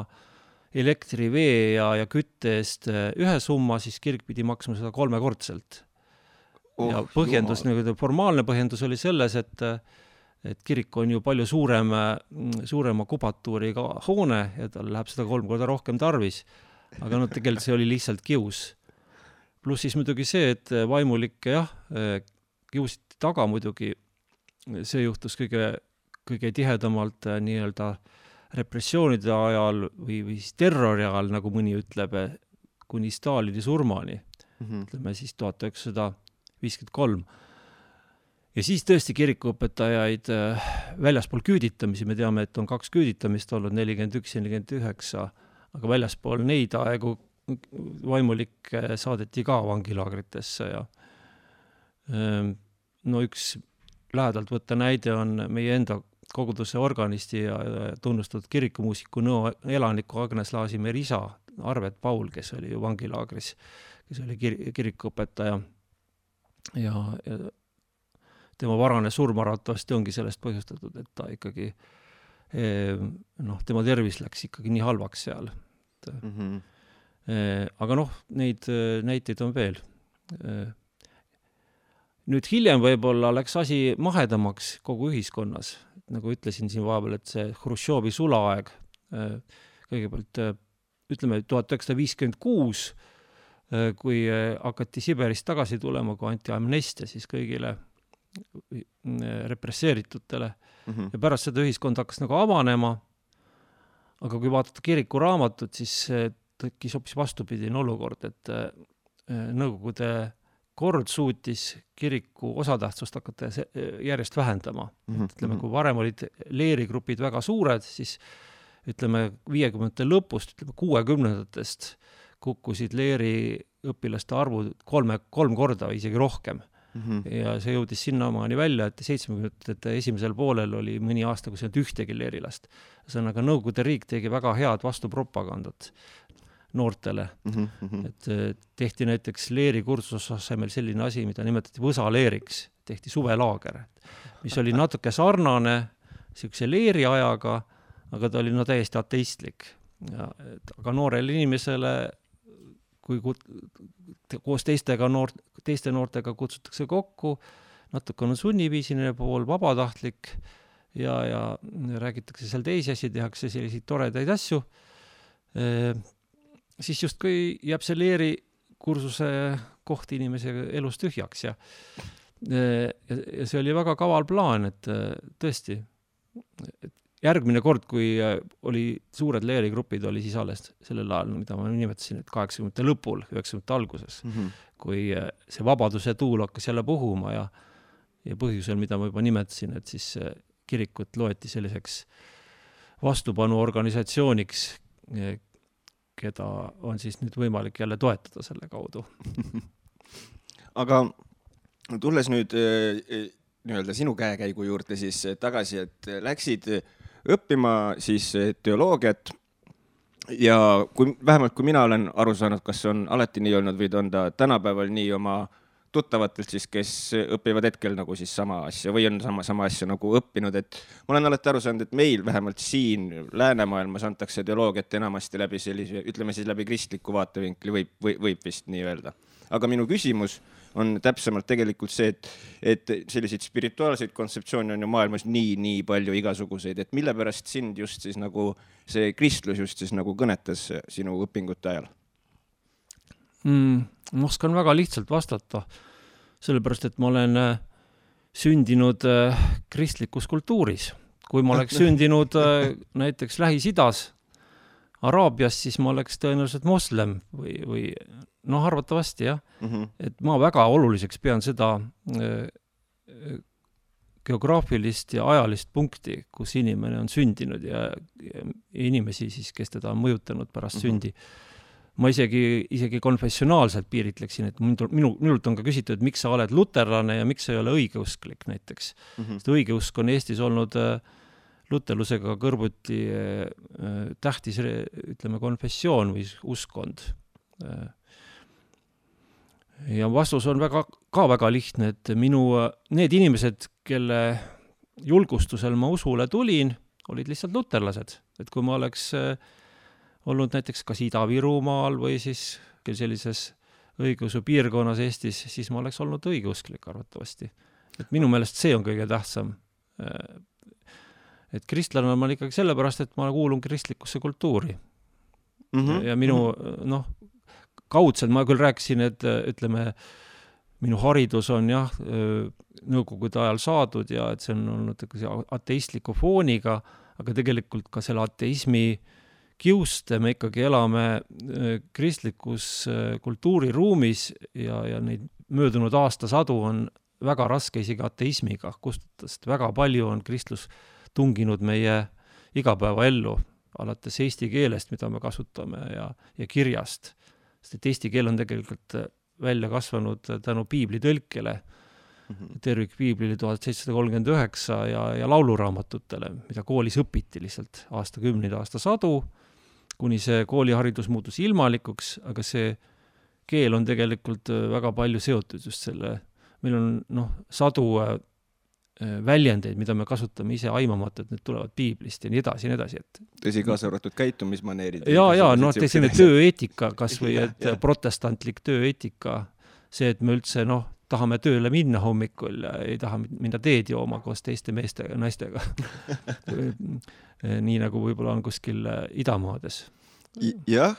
elektri, vee ja kütte eest ühe summa, siis kirik pidi maksma seda 3-kordselt. Ja põhjendus, formaalne põhjendus oli selles, et kirik on ju palju suurema kubatuuriga hoone ja tal läheb seda 3 korda rohkem tarvis. Aga tegelikult see oli lihtsalt kius. Pluss siis muidugi see, et vaimulikke kiusiti taga muidugi. See juhtus kõige tihedamalt nii-öelda repressioonide ajal või terrori ajal, nagu mõni ütleb, kuni Stalini surmani. Ütleme siis 1953. ja siis tõesti kirikuõpetajaid väljaspool küüditamisi, me teame, et on 2 küüditamist olnud, 41 ja 49, aga väljaspool neid aegu vaimulik saadeti ka vangilaagritesse ja no üks lähedalt võtta näide on meie enda koguduse organisti ja tunnustatud kirikumuusiku Nõo elaniku Agnes Laasimäe isa Arvet Paul, kes oli ju vangilaagris, kes oli kirikuõpetaja ja tema varane surm arvatavasti ongi sellest põhjustatud, et ta ikkagi tema tervis läks ikkagi nii halvaks seal. Aga neid näiteid on veel. Nüüd hiljem võib-olla läks asi mahedamaks kogu ühiskonnas. Nagu ütlesin siin vahepeal, et see Hruštšovi sulaaeg, kõigepealt ütleme 1956, kui hakati Siberist tagasi tulema, kui anti amnestia siis kõigile represseeritutele. Ja pärast seda ühiskond hakkas nagu avanema, aga kui vaadata kiriku raamatut, siis tekkis hoopis vastupidine olukord, et Nõukogude kord suutis kiriku osatähtsust hakata järjest vähendama. Ütleme, kui varem olid leerigrupid väga suured, siis ütleme 50. lõpust, ütleme 60-ndatest kukkusid leeri õpilaste arvud 3 korda või isegi rohkem. Ja see jõudis sinnamaani välja, et 70. esimesel poolel oli mõni aasta, kus ei olnud ühtegi leerilast. Sõnaga Nõukogude riik tegi väga head vastupropagandat noortele. Et tehti näiteks leeri kursuse asemel selline asi, mida nimetati võsaleeriks, tehti suvelaager, mis oli natuke sarnane siukse leeri ajaga, aga ta oli täiesti ateistlik. Aga noorele inimesele, kui koos teiste noortega kutsutakse kokku, natuke on sunniviisiline pool, vabatahtlik ja räägitakse seal teisi asju, tehakse selliseid toredaid asju, siis justkui jääb see leeri kursuse koht inimese elus tühjaks ja see oli väga kaval plaan, et tõesti järgmine kord, kui oli suured leerigrupid, oli siis alles sellel ajal, mida ma nimetasin, et 80. lõpul, 90. alguses, kui see vabaduse tuul hakkas jälle puhuma ja põhjusel, mida ma juba nimetasin, et siis kirikut loeti selliseks vastupanuorganisatsiooniks, keda on siis nüüd võimalik jälle toetada selle kaudu. Aga tulles nüüd nii-öelda sinu käekäigu juurde siis tagasi, et läksid õppima siis teoloogiat ja vähemalt kui mina olen aru saanud, kas on alati nii olnud või on ta tänapäeval nii oma tuttavatelt siis, kes õpivad hetkel nagu siis sama asja või on sama asja nagu õppinud, et ma olen alati aru saanud, et meil vähemalt siin läänemaailmas antakse teoloogiat enamasti läbi sellise, ütleme siis läbi kristliku vaatevinkli võib vist nii öelda. Aga minu küsimus on täpsemalt tegelikult see, et selliseid spirituaalseid kontseptsioone on ju maailmas nii palju igasuguseid, et mille pärast sind just siis nagu see kristlus just siis nagu kõnetas sinu õpingute ajal? Ma oskan väga lihtsalt vastata, sellepärast, et ma olen sündinud kristlikus kultuuris. Kui ma oleks sündinud näiteks Lähis-Idas, Araabias, siis ma oleks tõenäoliselt moslem või arvatavasti jah. Et ma väga oluliseks pean seda geograafilist ja ajalist punkti, kus inimene on sündinud ja inimesi siis, kes teda on mõjutanud pärast sündi. Ma isegi konfessionaalselt piiritleksin, et minult on ka küsitud, miks sa oled luterlane ja miks sa ei ole õigeusklik näiteks. Sest õigeusk on Eestis olnud luterlusega kõrvuti tähtis, ütleme, konfessioon või uskond. Ja vastus on väga lihtne, et need inimesed, kelle julgustusel ma usule tulin, olid lihtsalt luterlased. Et kui ma oleks olnud näiteks kas Ida-Virumaal või siis sellises õigeusu piirkonnas Eestis, siis ma oleks olnud õigeusklik arvatavasti. Et minu meelest see on kõige tähtsam. Et kristlane on ma ikkagi sellepärast, et ma kuulun kristlikusse kultuuri. Ja minu, kaudselt ma küll rääkisin, et ütleme, minu haridus on jah, nõukogude ajal saadud ja et see on olnud ateistliku fooniga, aga tegelikult ka selle ateismi kiuste me ikkagi elame kristlikus kultuuriruumis ja neid möödunud aastasadu on väga raske isegi ateismiga kustutada, sest väga palju on kristlus tunginud meie igapäevaellu, alates eesti keelest, mida me kasutame ja kirjast. Sest et eesti keel on tegelikult välja kasvanud tänu piibli tõlkele, tervikpiiblile 1739 ja lauluraamatutele, mida koolis õpiti lihtsalt aastakümneid, aastasadu, kuni see kooliharidus muutus ilmalikuks, aga see keel on tegelikult väga palju seotud just selle, meil on sadu väljendeid, mida me kasutame ise aimamata, et need tulevad piiblist ja nii edasi, et tõsi, kaasa arvatud käitumismaneerid. selline tööeetika kas või, et protestantlik tööeetika, see, et me üldse tahame tööle minna hommikul ja ei taha minna teed jooma koos teiste meeste ja naistega. Nii nagu võib-olla on kuskil idamaades. Jah,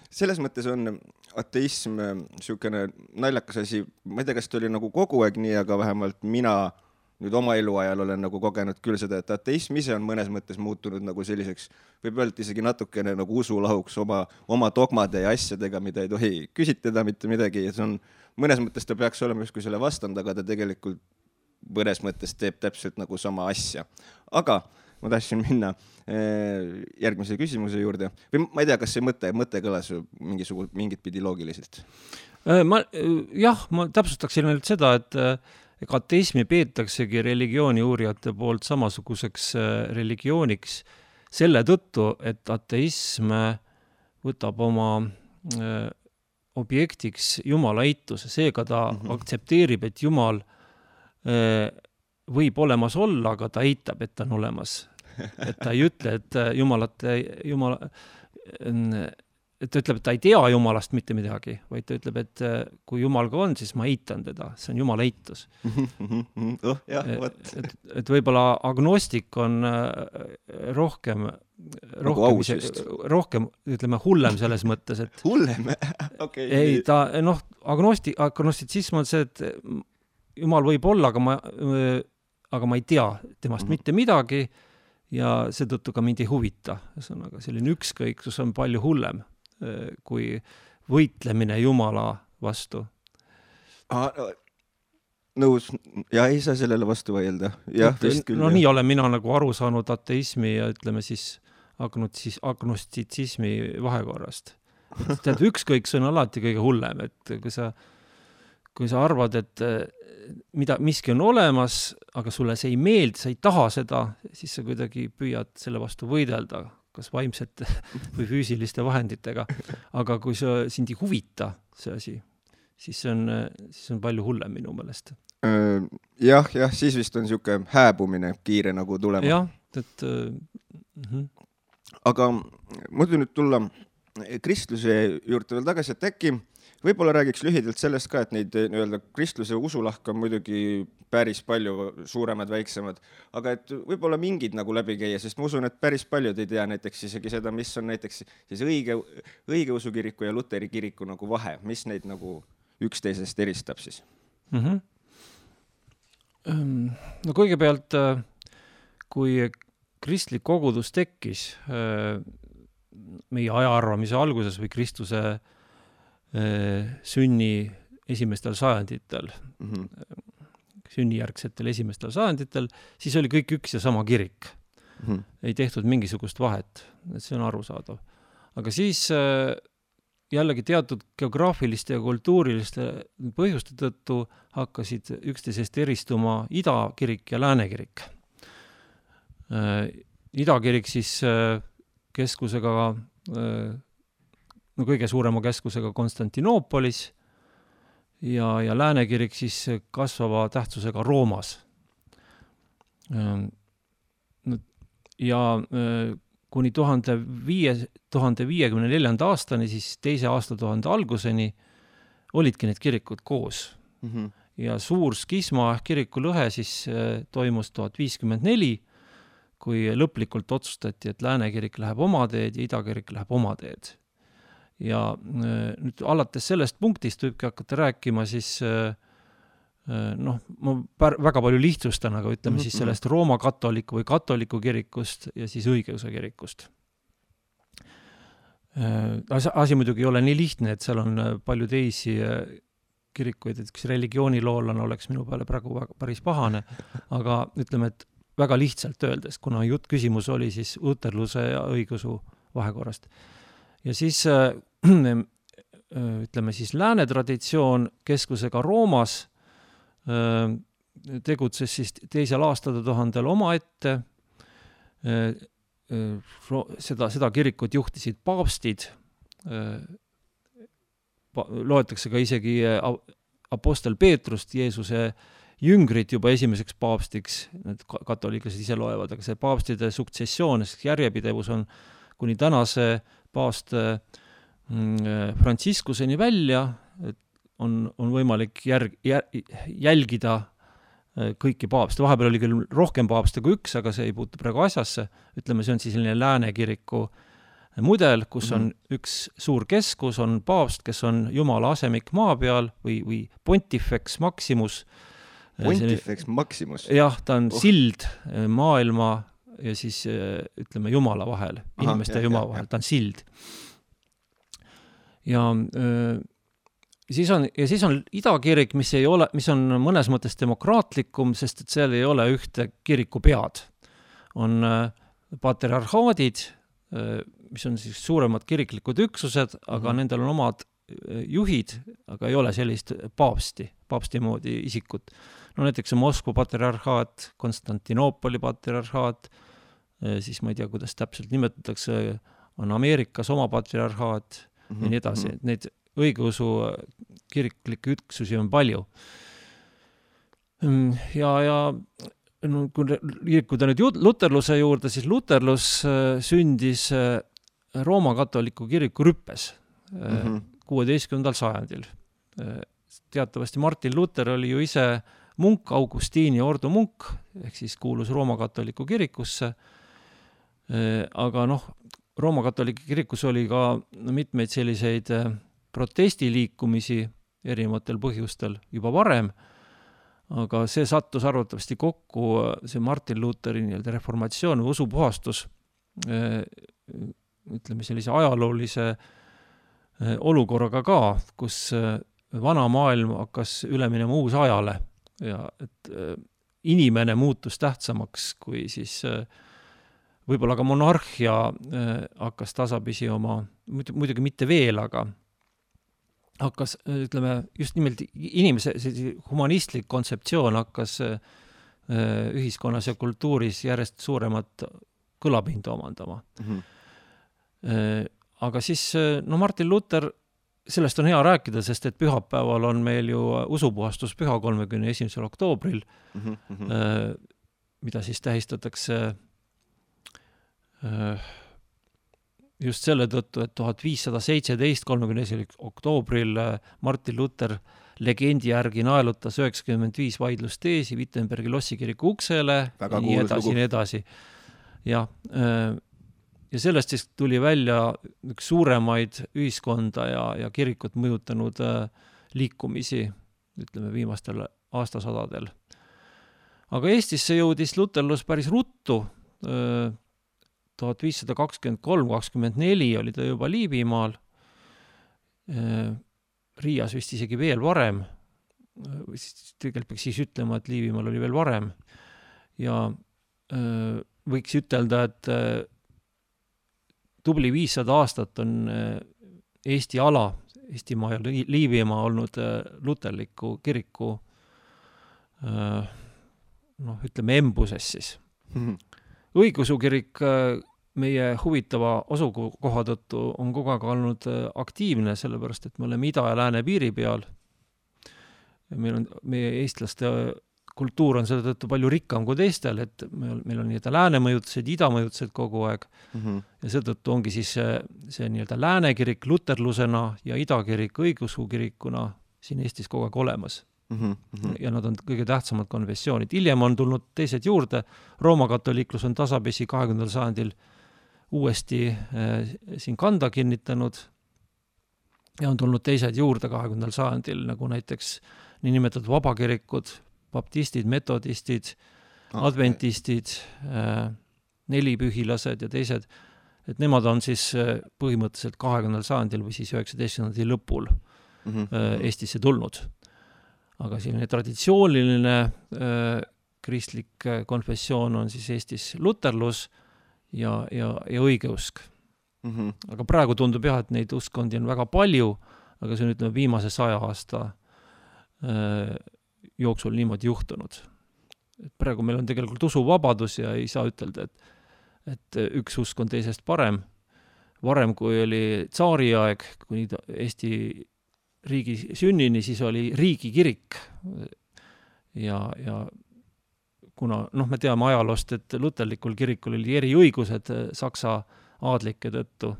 selles mõttes on ateism niisugune naljakas asi. Ma ei tea, kas ta oli nagu kogu aeg nii, aga vähemalt mina nüüd oma eluajal olen nagu kogenud küll seda, et ateism ise on mõnes mõttes muutunud nagu selliseks, võib öelda isegi natukene nagu usulahuks oma dogmade ja asjadega, mida ei tohi küsitleda mitte midagi. Ja see on, mõnes mõttes ta peaks olema justkui selle vastand, aga ta tegelikult mõnes mõttes teeb täpselt nagu sama asja. Aga ma tahtsin minna järgmise küsimuse juurde. Või ma ei tea, kas see mõte kõlas mingit pidi loogiliselt? Ma täpsustaksin ainult seda, et ateismi peetaksegi religiooni uurijate poolt samasuguseks religiooniks selle tõttu, et ateism võtab oma objektiks Jumala eituse. Seega ta aktsepteerib, et Jumal võib olemas olla, aga ta eitab, et ta on olemas. Et ta ei ütle, et et ta ütleb, et ta ei tea Jumalast mitte midagi, vaid ta ütleb, et kui Jumal ka on, siis ma eitan teda. See on Jumala eitus. Et võib-olla agnostik on rohkem, ütleme, hullem selles mõttes, et hullem? Okay. Ei, agnostitsism on see, et Jumal võib olla, aga ma ei tea temast mitte midagi ja seetõttu ka mind ei huvita. Ühesõnaga, selline ükskõiksus on palju hullem kui võitlemine Jumala vastu. Nõus. Ja ei saa sellele vastu vaielda. Jah, vist küll. Nii olen mina nagu aru saanud ateismi ja ütleme siis agnostitsismi vahekorrast. Tead, ükskõiksus on alati kõige hullem, et kui sa arvad, et miski on olemas, aga sulle see ei meeldi, sa ei taha seda, siis sa kuidagi püüad selle vastu võidelda, kas vaimsete või füüsiliste vahenditega. Aga kui sind ei huvita see asi, siis on palju hullem minu meelest. Jah, siis vist on niisugune hääbumine kiire nagu tulema. Jah, et... Aga muidu nüüd tulla kristluse juurde veel tagasi, et äkki võib-olla räägiks lühidalt sellest ka, et neid kristluse usulahk on muidugi päris palju suuremad, väiksemad, aga et võib-olla mingid nagu läbi käia, sest ma usun, et päris paljud ei tea näiteks isegi seda, mis on näiteks siis õigeusu kiriku ja luteri kiriku nagu vahe, mis neid nagu üksteisest eristab siis? No kõigepealt, kui kristlik kogudus tekkis meie ajaarvamise alguses või Kristuse sünni esimestel sajanditel, sünnijärgsetel esimestel sajanditel, siis oli kõik üks ja sama kirik. Ei tehtud mingisugust vahet, see on arusaadav. Aga siis jällegi teatud geograafiliste ja kultuuriliste põhjuste tõttu hakkasid üksteisest eristuma idakirik ja läänekirik. Idakirik siis keskusega, kõige suurema keskusega Konstantinoopolis ja läänekirik siis kasvava tähtsusega Roomas. Ja kuni 1054. aastani, siis teise aastatuhande alguseni olidki need kirikud koos. Ja suur skisma ehk kiriku lõhe siis toimus 1054, kui lõplikult otsustati, et läänekirik läheb oma teed ja idakirik läheb oma teed. Ja nüüd alates sellest punktist võibki hakata rääkima siis, ma väga palju lihtsustan, aga ütleme siis sellest Rooma katoliku või katoliku kirikust ja siis õigeusu kirikust. Asi muidugi ei ole nii lihtne, et seal on palju teisi kirikuid, et üks religiooniloolane oleks minu peale praegu päris pahane, aga ütleme, et väga lihtsalt öeldes, kuna küsimus oli siis luterluse ja õigeusu vahekorrast. Ja siis ütleme siis lääne traditsioon keskusega Roomas tegutses siis teisel aastatuhandel omaette. Seda kirikut juhtisid paavstid, loetakse ka isegi apostel Peetrust, Jeesuse jüngrit juba esimeseks paavstiks, need katoliiklased ise loevad, aga see paavstide suksessioon, järjepidevus on kuni tänase paavst Franciscuseni välja, et on võimalik jälgida kõiki paavste. Vahepeal oli küll rohkem paavste kui üks, aga see ei puutu praegu asjasse. Ütleme, see on siis selline lääne kiriku mudel, kus on üks suur keskus, on paavst, kes on Jumala asemik maa peal või Pontifex Maximus. Pontifex Maximus? Jah, ta on sild maailma ja siis ütleme Jumala vahel, inimeste ja Jumala vahel, ta on sild. Ja siis on idakirik, mis on mõnes mõttes demokraatlikum, sest et seal ei ole ühte kiriku pead. On patriarhaadid, mis on siis suuremad kiriklikud üksused, aga nendel on omad juhid, aga ei ole sellist paavsti moodi isikut. No näiteks on Moskva patriarhaat, Konstantinoopoli patriarhaat, siis ma ei tea, kuidas täpselt nimetatakse, on Ameerikas oma patriarhaat ja nii edasi. Neid õigeusu kiriklikke üksusi on palju. Ja kui liikuda nüüd luterluse juurde, siis luterlus sündis Rooma katoliku kiriku rüppes 16. sajandil. Teatavasti Martin Luther oli ju ise munk, Augustiini ordu munk, ehk siis kuulus Rooma katoliku kirikusse. Aga Rooma katoliku kirikus oli ka mitmeid selliseid protestiliikumisi erinevatel põhjustel juba varem, aga see sattus arvatavasti kokku, see Martin Lutheri reformatsioon või usupuhastus, ütleme sellise ajaloolise olukorraga ka, kus vana maailm hakkas üle minema uus ajale ja et inimene muutus tähtsamaks kui siis võib-olla ka monarhia hakkas tasapisi oma, muidugi mitte veel, aga hakkas, ütleme, just nimelt inimese humanistlik kontseptsioon hakkas ühiskonnas ja kultuuris järjest suuremat kõlapinda omandama. Aga siis, Martin Luther, sellest on hea rääkida, sest et pühapäeval on meil ju usupuhastus püha 31. oktoobril, mida siis tähistatakse just selle tõttu, et 1517, 31. oktoobril Martin Luther legendi järgi naelutas 95 vaidlusteesi Wittenbergi lossikiriku uksele, nii edasi. Ja sellest siis tuli välja üks suuremaid ühiskonda ja kirikut mõjutanud liikumisi, ütleme, viimastel aastasadadel. Aga Eestisse jõudis luterlus päris ruttu, 1523-24 oli ta juba Liivimaal, Riias vist isegi veel varem, tegelikult peaks siis ütlema, et Liivimaal oli veel varem ja võiks ütelda, et tubli 500 aastat on Eesti ala, Eestimaa ja Liivimaa olnud luterliku kiriku ütleme embuses siis. Õigeusu kirik meie huvitava asukoha tõttu on kogu aeg olnud aktiivne, sellepärast et me oleme ida ja lääne piiri peal. Meie eestlaste kultuur on selle tõttu palju rikkam kui teistel, et meil on nii-öelda lääne mõjutused, ida mõjutused kogu aeg. Ja seetõttu ongi siis see nii-öelda lääne kirik luterlusena ja ida kirik õigeusu kirikuna siin Eestis kogu aeg olemas. Ja nad on kõige tähtsamad konfessioonid. Hiljem on tulnud teised juurde. Rooma katoliiklus on tasapisi 20. sajandil uuesti siin kanda kinnitanud ja on tulnud teised juurde 20. sajandil, nagu näiteks niinimetatud vabakirikud, baptistid, metodistid, adventistid, nelipühilased ja teised, et nemad on siis põhimõtteliselt 20. sajandil või siis 19. lõpul Eestisse tulnud. aga selline traditsiooniline kristlik konfessioon on siis Eestis luterlus ja õigeusk. Aga praegu tundub jah, et neid uskondi on väga palju, aga see on ütleme viimase 100 aasta jooksul niimoodi juhtunud. Et praegu meil on tegelikult usuvabadus ja ei saa ütelda, et üks usk on teisest parem. Varem, kui oli tsaariaeg, kuni Eesti riigi sünnini, siis oli riigikirik. Ja kuna me teame ajaloost, et luterlikul kirikul oli eriõigused Saksa aadlike tõttu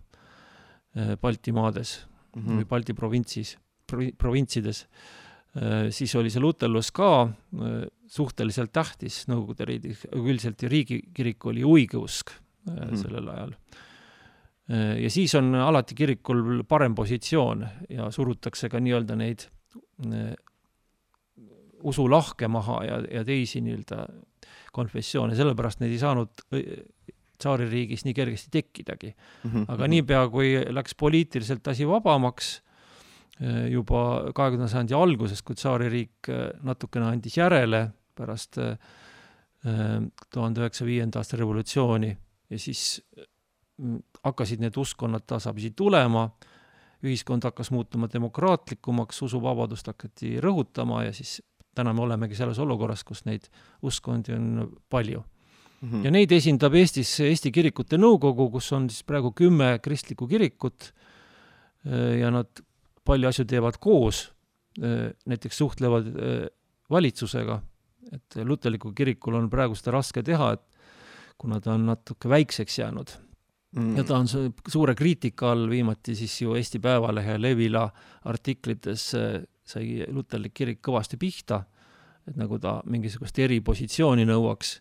Baltimaades või Balti provintsides, siis oli see luterlus ka suhteliselt tähtis Nõukogude riigis, üldiselt riigikirik oli õigeusk sellel ajal. Ja siis on alati kirikul parem positsioon ja surutakse ka nii-öelda neid usulahke maha ja teisi nii-öelda konfessioone, sellepärast neid ei saanud tsaaririigis nii kergesti tekkidagi. Aga niipea, kui läks poliitiliselt asi vabamaks, juba 20. sajandi alguses, kui tsaaririik natukene andis järele pärast 1905. aasta revolutsiooni ja siis hakkasid need uskonnad tasapisi tulema, ühiskond hakkas muutuma demokraatlikumaks, usuvabadust hakati rõhutama ja siis täna me olemegi selles olukorras, kus neid uskondi on palju. Ja neid esindab Eestis Eesti kirikute nõukogu, kus on siis praegu 10 kristlikku kirikut ja nad palju asju teevad koos, näiteks suhtlevad valitsusega, et luterliku kirikul on praegu seda raske teha, et kuna ta on natuke väikseks jäänud. Ja ta on suure kriitika all, viimati siis ju Eesti Päevalehe Levila artiklites sai luterlik kirik kõvasti pihta, et nagu ta mingisugust eripositsiooni nõuaks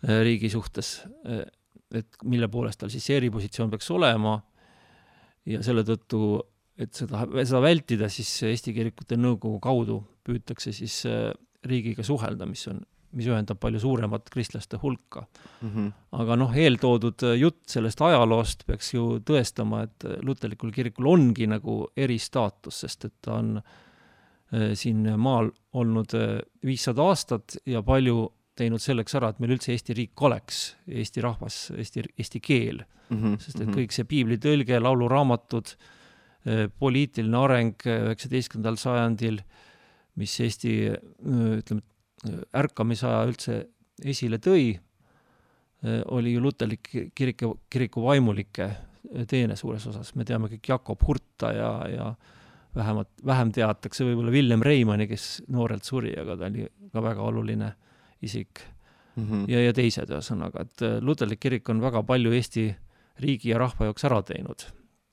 riigi suhtes, et mille poolest tal siis eripositsioon peaks olema ja selle tõttu, et seda vältida, siis Eesti kirikute nõukogu kaudu püütakse siis riigiga suhelda, mis ühendab palju suuremat kristlaste hulka. Aga eeltoodud jutt sellest ajaloost peaks ju tõestama, et luterlikul kirikul ongi nagu eristaatus, sest et ta on siin maal olnud 500 aastat ja palju teinud selleks ära, et meil üldse Eesti riik oleks, Eesti rahvas, Eesti keel. Sest et kõik see piibli tõlge, lauluraamatud, poliitiline areng 19. sajandil, mis Eesti ärkamisaja üldse esile tõi, oli ju luterlik kiriku vaimulike teene suures osas. Me teame kõik Jakob Hurta ja vähem teatakse võib-olla Villem Reimanni, kes noorelt suri, aga ta oli ka väga oluline isik ja teised ühesõnaga, et luterlik kirik on väga palju Eesti riigi ja rahva jaoks ära teinud.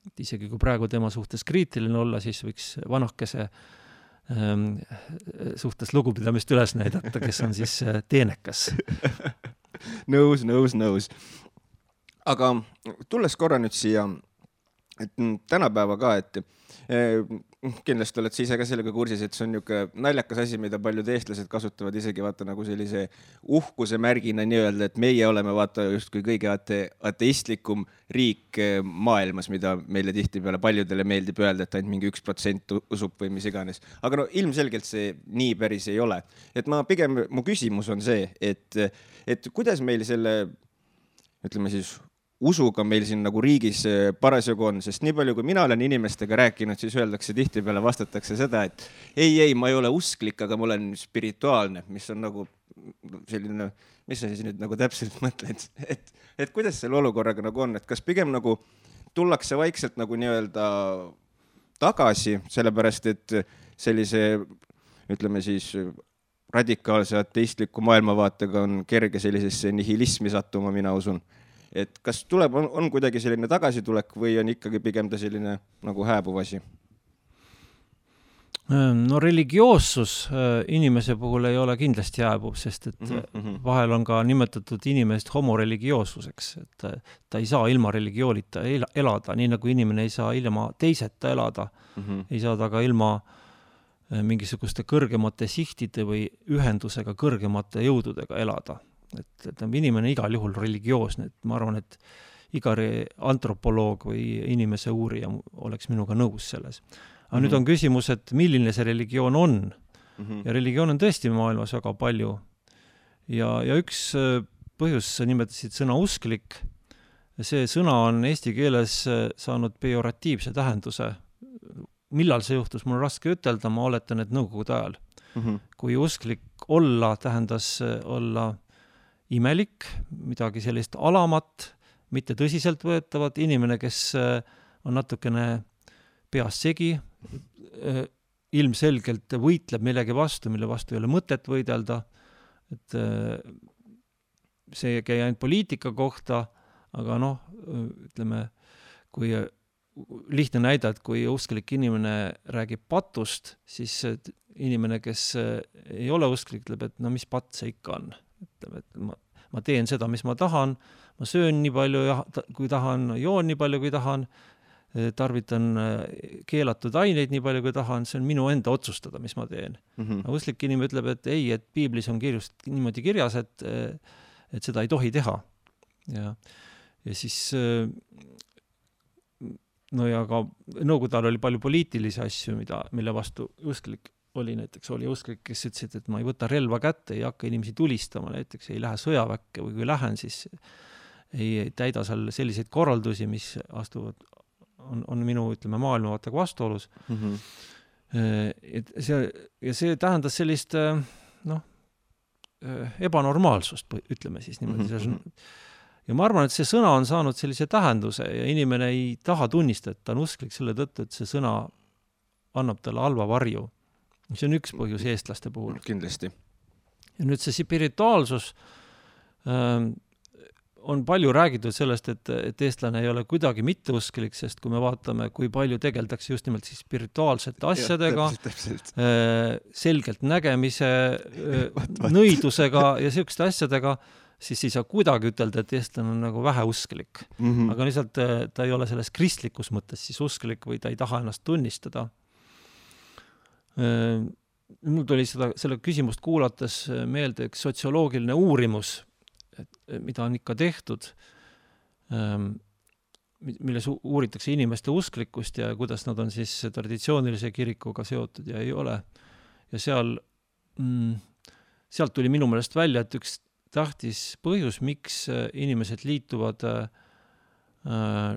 Et isegi kui praegu tema suhtes kriitiline olla, siis võiks vanakese suhtes lugupidamist üles näidata, kes on siis teenekas. Nõus. Aga tulles korra nüüd siia, et tänapäeva ka, et kindlasti oled sa ise ka sellega kursis, et see on niisugune naljakas asi, mida paljud eestlased kasutavad isegi vaata nagu sellise uhkuse märgina nii-öelda, et meie oleme vaata justkui kõige ateistlikum riik maailmas, mida meile tihtipeale paljudele meeldib öelda, et ainult mingi 1% usub või mis iganes. Aga ilmselgelt see nii päris ei ole. Et mu küsimus on see, et kuidas meil selle, ütleme siis, usuga meil siin nagu riigis parasjagu on, sest nii palju, kui mina olen inimestega rääkinud, siis öeldakse tihtipeale, vastatakse seda, et ei, ma ei ole usklik, aga ma olen spirituaalne, mis on nagu selline, mis sa siis nüüd nagu täpselt mõtled, et kuidas selle olukorraga nagu on, et kas pigem nagu tullakse vaikselt nagu nii-öelda tagasi, sellepärast et sellise, ütleme siis, radikaalse ateistliku maailmavaatega on kerge sellisesse nihilismi sattuma, mina usun. Et kas tuleb, on kuidagi selline tagasitulek või on ikkagi pigem ta selline nagu hääbuv asi? No religioossus inimese puhul ei ole kindlasti hääbuv, sest et vahel on ka nimetatud inimest homoreligioossuseks, et ta ei saa ilma religioonita elada, nii nagu inimene ei saa ilma teiseta elada, ei saa ta ka ilma mingisuguste kõrgemate sihtide või ühendusega kõrgemate jõududega elada. Et inimene igal juhul religioosne, et ma arvan, et iga antropoloog või inimese uurija oleks minuga nõus selles. Aga nüüd on küsimus, et milline see religioon on. Ja religioon on tõesti maailmas väga palju. Ja üks põhjus, sa nimetasid sõna usklik, see sõna on eesti keeles saanud pejoratiivse tähenduse. Millal see juhtus, mul on raske ütelda, ma oletan, et nõukogude ajal. Kui usklik olla tähendas olla imelik, midagi sellist alamat, mitte tõsiselt võetavat, inimene, kes on natukene peas segi, ilmselgelt võitleb millegi vastu, mille vastu ei ole mõtet võidelda, et see ei käi ainult poliitika kohta, aga ütleme, kui lihtne näida, et kui usklik inimene räägib patust, siis inimene, kes ei ole usklik, ütleb, et mis patt see ikka on. Ütleb, et ma teen seda, mis ma tahan, ma söön nii palju, kui tahan, joon nii palju, kui tahan, tarvitan keelatud aineid nii palju, kui tahan, see on minu enda otsustada, mis ma teen. Usklik inimene ütleb, et ei, et piiblis on niimoodi kirjas, et seda ei tohi teha. Ja siis ja ka nõukogude ajal oli palju poliitilisi asju, mille vastu usklik oli usklik, kes ütlesid, et ma ei võta relva kätte, ei hakka inimesi tulistama, näiteks ei lähe sõjaväkke või kui lähen, siis ei täida seal selliseid korraldusi, mis on minu, maailmavaatega vastuolus. See tähendas sellist ebanormaalsust, ütleme siis niimoodi. Ja ma arvan, et see sõna on saanud sellise tähenduse ja inimene ei taha tunnistada, et ta on usklik selle tõttu, et see sõna annab talle halva varju. See on üks põhjus eestlaste puhul. Kindlasti. Ja nüüd see spirituaalsus on palju räägitud sellest, et eestlane ei ole kuidagi mitteusklik, sest kui me vaatame, kui palju tegeldakse just nimelt siis spirituaalsete asjadega, selgelt nägemise, nõidusega ja selliste asjadega, siis ei saa kuidagi ütelda, et eestlane on nagu vähe usklik. Aga lihtsalt ta ei ole selles kristlikus mõttes siis usklik või ta ei taha ennast tunnistada. Mul tuli selle küsimust kuulates meelde üks sotsioloogiline uurimus, mida on ikka tehtud, milles uuritakse inimeste usklikkust ja kuidas nad on siis traditsioonilise kirikuga seotud ja ei ole. Ja sealt tuli minu meelest välja, et üks tähtis põhjus, miks inimesed liituvad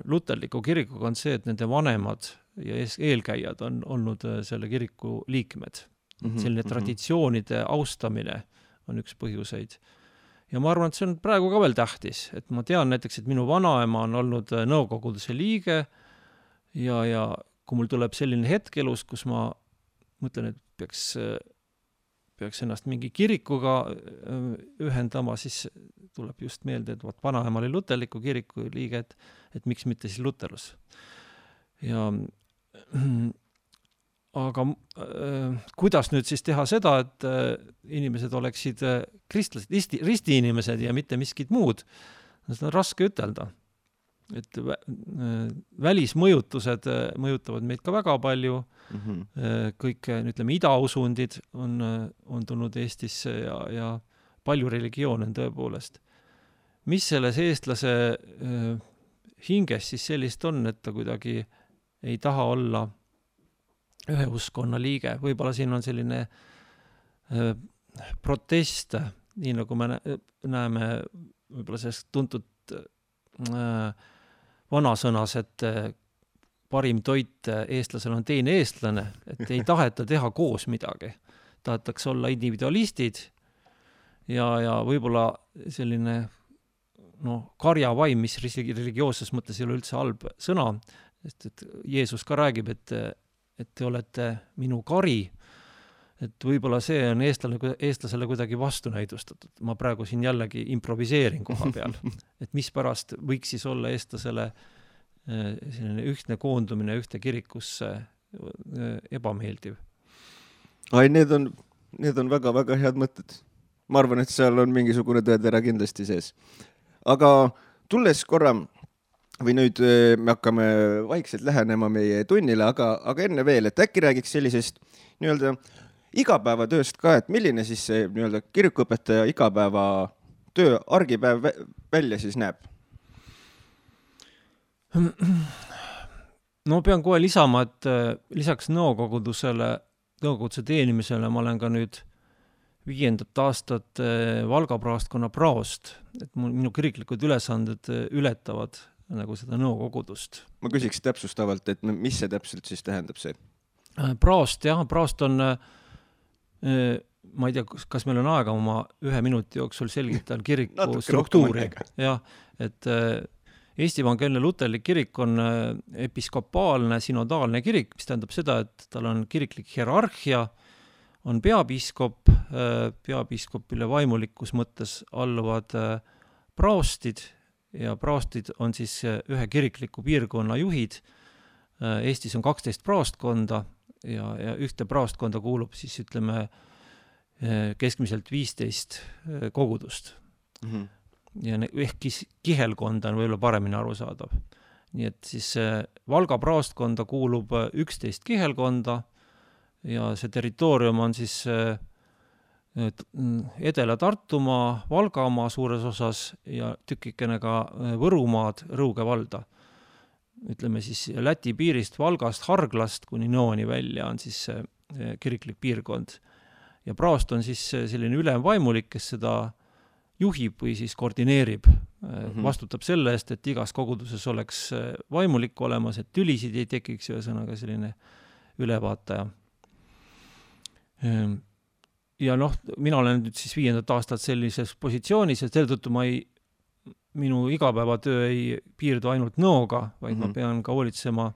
luterliku kirikuga on see, et nende vanemad ja eelkäijad on olnud selle kiriku liikmed. Selline traditsioonide austamine on üks põhjuseid. Ja ma arvan, et see on praegu ka veel tähtis, et ma tean näiteks, et minu vanaema on olnud nõukoguduse liige ja kui mul tuleb selline hetk elus, kus ma mõtlen, et peaks ennast mingi kirikuga ühendama, siis tuleb just meelde, et vanaema oli luterliku kiriku liige, et miks mitte siis luterlus. Aga kuidas nüüd siis teha seda, et inimesed oleksid kristlased, ristiinimesed ja mitte miskid muud? Seda on raske ütelda. Et välismõjutused mõjutavad meid ka väga palju. Kõik, idausundid on tulnud Eestisse ja palju religioone on tõepoolest. Mis selles eestlase hinges siis sellist on, et ta kuidagi ei taha olla ühe uskonna liige. Võib-olla siin on selline protest, nii nagu me näeme võib-olla sellest tuntud vanasõnas, et parim toit eestlasel on teine eestlane, et ei taheta teha koos midagi. Tahetakse olla individualistid ja võib-olla selline karjavaim, mis religioosses mõttes ei ole üldse halb sõna, sest et Jeesus ka räägib, et te olete minu kari, et võib-olla see on eestlasele kuidagi vastunäidustatud. Ma praegu siin jällegi improviseerin koha peal, et mis pärast võiks siis olla eestlasele selline ühtne koondumine ühte kirikusse ebameeldiv. Need on väga-väga head mõtted. Ma arvan, et seal on mingisugune tõetera kindlasti sees. Aga tulles korra, või nüüd me hakkame vaikselt lähenema meie tunnile, aga enne veel, et äkki räägiks sellisest nii-öelda igapäevatööst ka, et milline siis see nii-öelda kirikuõpetaja igapäeva töö, argipäev välja siis näeb? No pean kohe lisama, et lisaks nõukogudusele nõukoguduse teenimisele ma olen ka nüüd 5. aastat Valga praostkonna praost, et minu kiriklikud ülesanded ületavad nagu seda nõukogudust. Ma küsiks täpsustavalt, et mis see täpselt siis tähendab see? Praost, jah, praost on, ma ei tea, kas meil on aega oma 1 minuti jooksul selgitan kiriku struktuuri. Jah, et Eesti Evangeelne Luterlik kirik on episkopaalne, synodaalne kirik, mis tähendab seda, et tal on kiriklik hierarhia, on peapiiskop, peapiiskopile vaimulikus mõttes alluvad praostid ja praostid on siis ühe kirikliku piirkonna juhid. Eestis on 12 praostkonda ja ühte praostkonda kuulub siis ütleme keskmiselt 15 kogudust. Mm-hmm. Ja ehk kihelkonda on võib-olla paremini arusaadav. Nii et siis Valga praostkonda kuulub 11 kihelkonda ja see territoorium on siis Edela-Tartumaa, Valgamaa suures osas ja tükikene ka Võrumaad, Rõuge valda. Ütleme siis Läti piirist, Valgast, Harglast kuni Nõoni välja on siis kiriklik piirkond. Ja praost on siis selline ülemvaimulik, kes seda juhib või siis koordineerib. Vastutab selle eest, et igas koguduses oleks vaimulik olemas, et tülisid ei tekiks ühesõnaga selline ülevaataja. Ja mina olen nüüd siis 5. aastat sellises positsioonis, et selle tõttu minu igapäevatöö ei piirdu ainult nõoga, vaid ma pean ka hoolitsema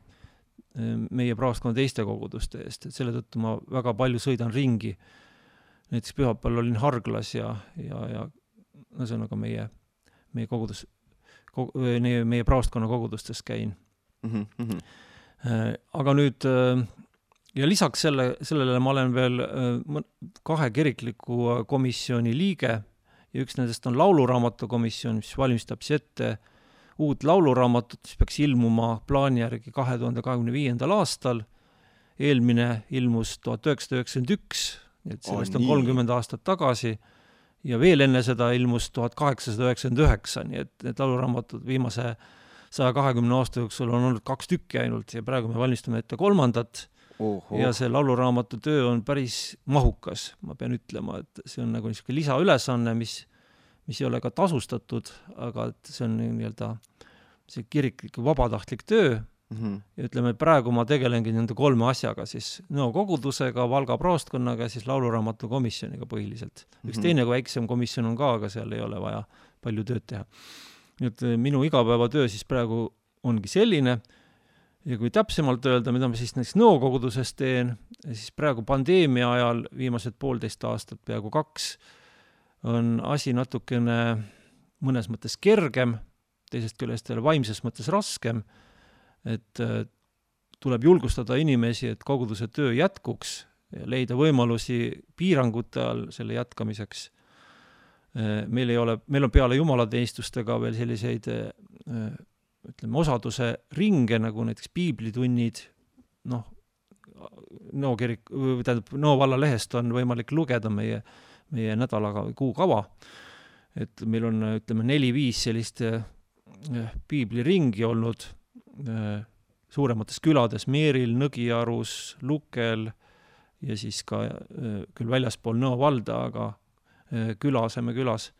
meie praostkonna teiste koguduste eest, et selle tõttu ma väga palju sõidan ringi. Näiteks pühapäeval olin Harglas ja ühesõnaga meie kogudus, meie praostkonna kogudustes käin. Aga nüüd ja lisaks sellele ma olen veel 2 kirikliku komisjoni liige ja üks nendest on lauluraamatu komisjon, mis valmistab ette uut lauluraamatut, mis peaks ilmuma plaani järgi 2025. aastal. Eelmine ilmus 1991, et sellest on 30 aastat tagasi ja veel enne seda ilmus 1899, nii et need lauluraamatud viimase 120 aasta jooksul on olnud 2 tükki ainult ja praegu me valmistame ette 3. Ja see lauluraamatu töö on päris mahukas, ma pean ütlema, et see on nagu niisugune lisaülesanne, mis ei ole ka tasustatud, aga see on nii-öelda see kiriklik vabatahtlik töö. Ja ütleme, praegu ma tegelengi nende 3 asjaga, siis nõukogudusega, Valga praostkonnaga ja siis lauluraamatu komisjoniga põhiliselt. Üks teine kui väiksem komisjon on ka, aga seal ei ole vaja palju tööd teha. Nüüd minu igapäevatöö siis praegu ongi selline. Ja kui täpsemalt öelda, mida ma siis näiteks nõukoguduses teen, siis praegu pandeemia ajal viimased 1,5 aastat, peaaegu 2, on asi natukene mõnes mõttes kergem, teisest küljest vaimses mõttes raskem, et tuleb julgustada inimesi, et koguduse töö jätkuks ja leida võimalusi piirangute all selle jätkamiseks. Meil on peale jumalateenistustega veel selliseid ütleme, osaduse ringe, nagu näiteks piiblitunnid, Nõo valla lehest on võimalik lugeda meie nädalaga või kuukava. Et meil on, ütleme, 4-5 sellist piibliringi olnud suuremates külades, Meeril, Nõgiarus, Lukel ja siis ka küll väljaspool Nõo valda, aga aseme külas.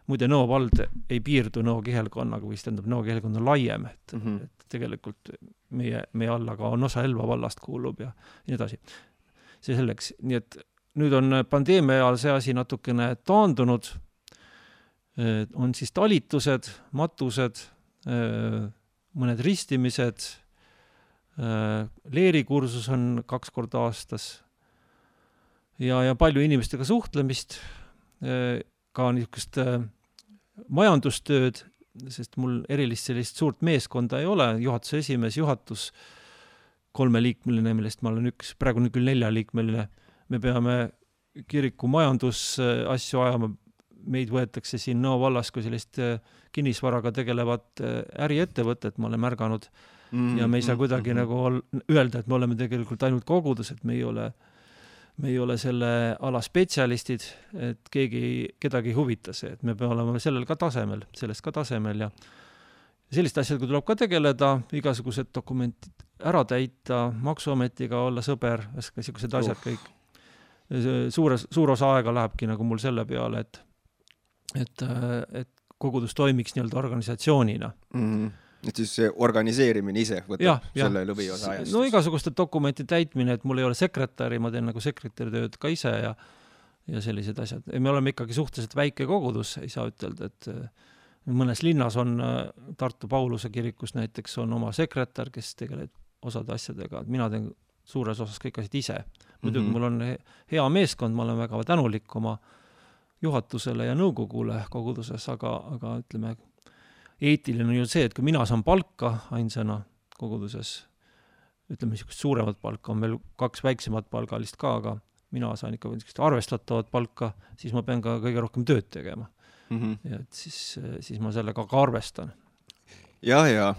Muide, Nõo vald ei piirdu Nõo kihelkonnaga, või tähendab Nõo kihelkond on laiem, et tegelikult meie alla ka on osa Elva vallast kuulub ja nii edasi. See selleks. Nii et nüüd on pandeemia ajal see asi natukene taandunud. On siis talitused, matused, mõned ristimised, leerikursus on 2 korda aastas ja palju inimestega suhtlemist, ka niisugust majandustööd, sest mul erilist sellist suurt meeskonda ei ole, juhatuse esimees, juhatus 3-liikmeline, millest ma olen praegu küll 4-liikmeline. Me peame kiriku majandusasju ajama, meid võetakse siin Nõo vallas kui sellist kinnisvaraga tegelevat äriettevõtet, ma olen märganud, ja me ei saa kuidagi nagu öelda, et me oleme tegelikult ainult kogudus, et me ei ole selle ala spetsialistid, et kedagi huvita see, et me peame olema sellest ka tasemel selliste asjadega tuleb ka tegeleda, igasugused dokumendid ära täita, maksuametiga olla sõber, sellised asjad kõik. Suur osa aega lähebki nagu mul selle peale, et kogudus toimiks nii-öelda organisatsioonina. Et siis see organiseerimine ise võtab selle lõviosa ajast. No igasuguste dokumenti täitmine, et mul ei ole sekretäri, ma teen nagu sekretäri tööd ka ise ja sellised asjad. Me oleme ikkagi suhteliselt väike kogudus, ei saa ütelda, et mõnes linnas on Tartu Pauluse kirikus näiteks on oma sekretär, kes tegeleb osade asjadega. Mina teen suures osas kõik asjad ise. Muidugi mul on hea meeskond, ma olen väga tänulik oma juhatusele ja nõukogule koguduses, aga ütleme, eetiline on ju see, et kui mina saan palka ainsana koguduses, ütleme, suuremat palka, on veel 2 väiksemat palgalist ka, aga mina saan ikka arvestatavat palka, siis ma pean ka kõige rohkem tööd tegema. Ja et siis ma sellega ka arvestan. Ja, ja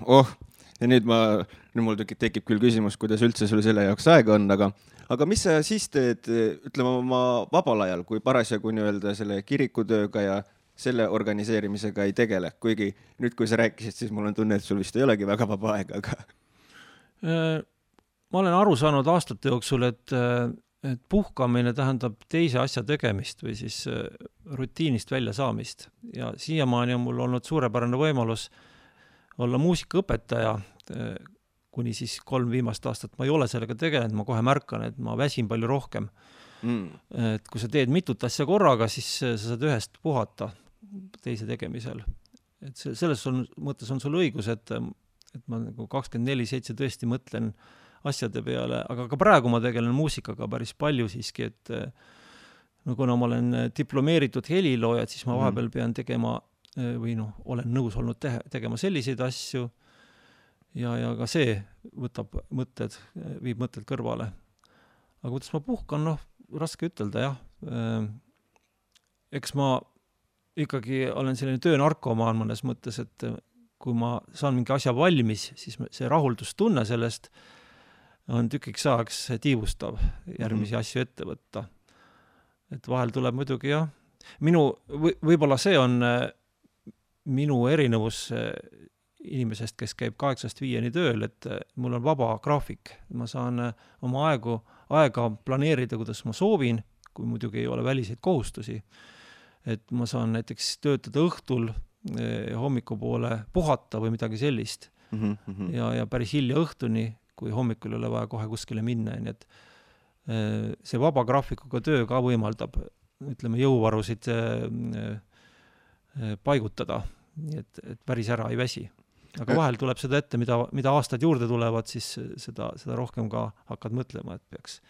nüüd mul tekib küll küsimus, kuidas üldse sul selle jaoks aega on, aga mis sa siis teed, ütleme oma vabal ajal, kui parasjagu nii-öelda selle kirikutööga ja selle organiseerimisega ei tegele, kuigi nüüd, kui sa rääkisid, siis mul on tunne, et sul vist ei olegi väga vaba aega, aga... Ma olen aru saanud aastate jooksul, et puhkamine tähendab teise asja tegemist või siis rutiinist välja saamist. Ja siiamaani on mul olnud suurepärane võimalus olla muusikaõpetaja, kuni siis 3 viimast aastat ma ei ole sellega tegelenud, ma kohe märkan, et ma väsin palju rohkem. Et kui sa teed mitut asja korraga, siis sa saad ühest puhata teise tegemisel. Et selles mõttes on sul õigus, et ma nagu 24/7 tõesti mõtlen asjade peale, aga ka praegu ma tegelen muusikaga päris palju siiski, et kuna ma olen diplomeeritud helilooja, siis ma vahepeal pean tegema või olen nõus olnud tegema selliseid asju ja ka see viib mõtted kõrvale. Aga kuidas ma puhkan, raske ütelda, jah. Eks ma ikkagi olen selline töönarkomaan mõnes mõttes, et kui ma saan mingi asja valmis, siis see rahuldustunne sellest on tükiks ajaks tiivustav järgmisi asju ette võtta. Et vahel tuleb muidugi, jah. Võib-olla see on minu erinevus inimesest, kes käib 8-5 tööl, et mul on vaba graafik. Ma saan oma aega planeerida, kuidas ma soovin, kui muidugi ei ole väliseid kohustusi. Et ma saan näiteks töötada õhtul hommikupoole puhata või midagi sellist. Ja päris hilja õhtuni, kui hommikul ei ole vaja kohe kuskile minna. Nii et see vaba graafikuga töö ka võimaldab, ütleme, jõuvarusid paigutada, nii et päris ära ei väsi. Aga vahel tuleb seda ette, mida aastad juurde tulevad, siis seda rohkem ka hakkad mõtlema, et peaks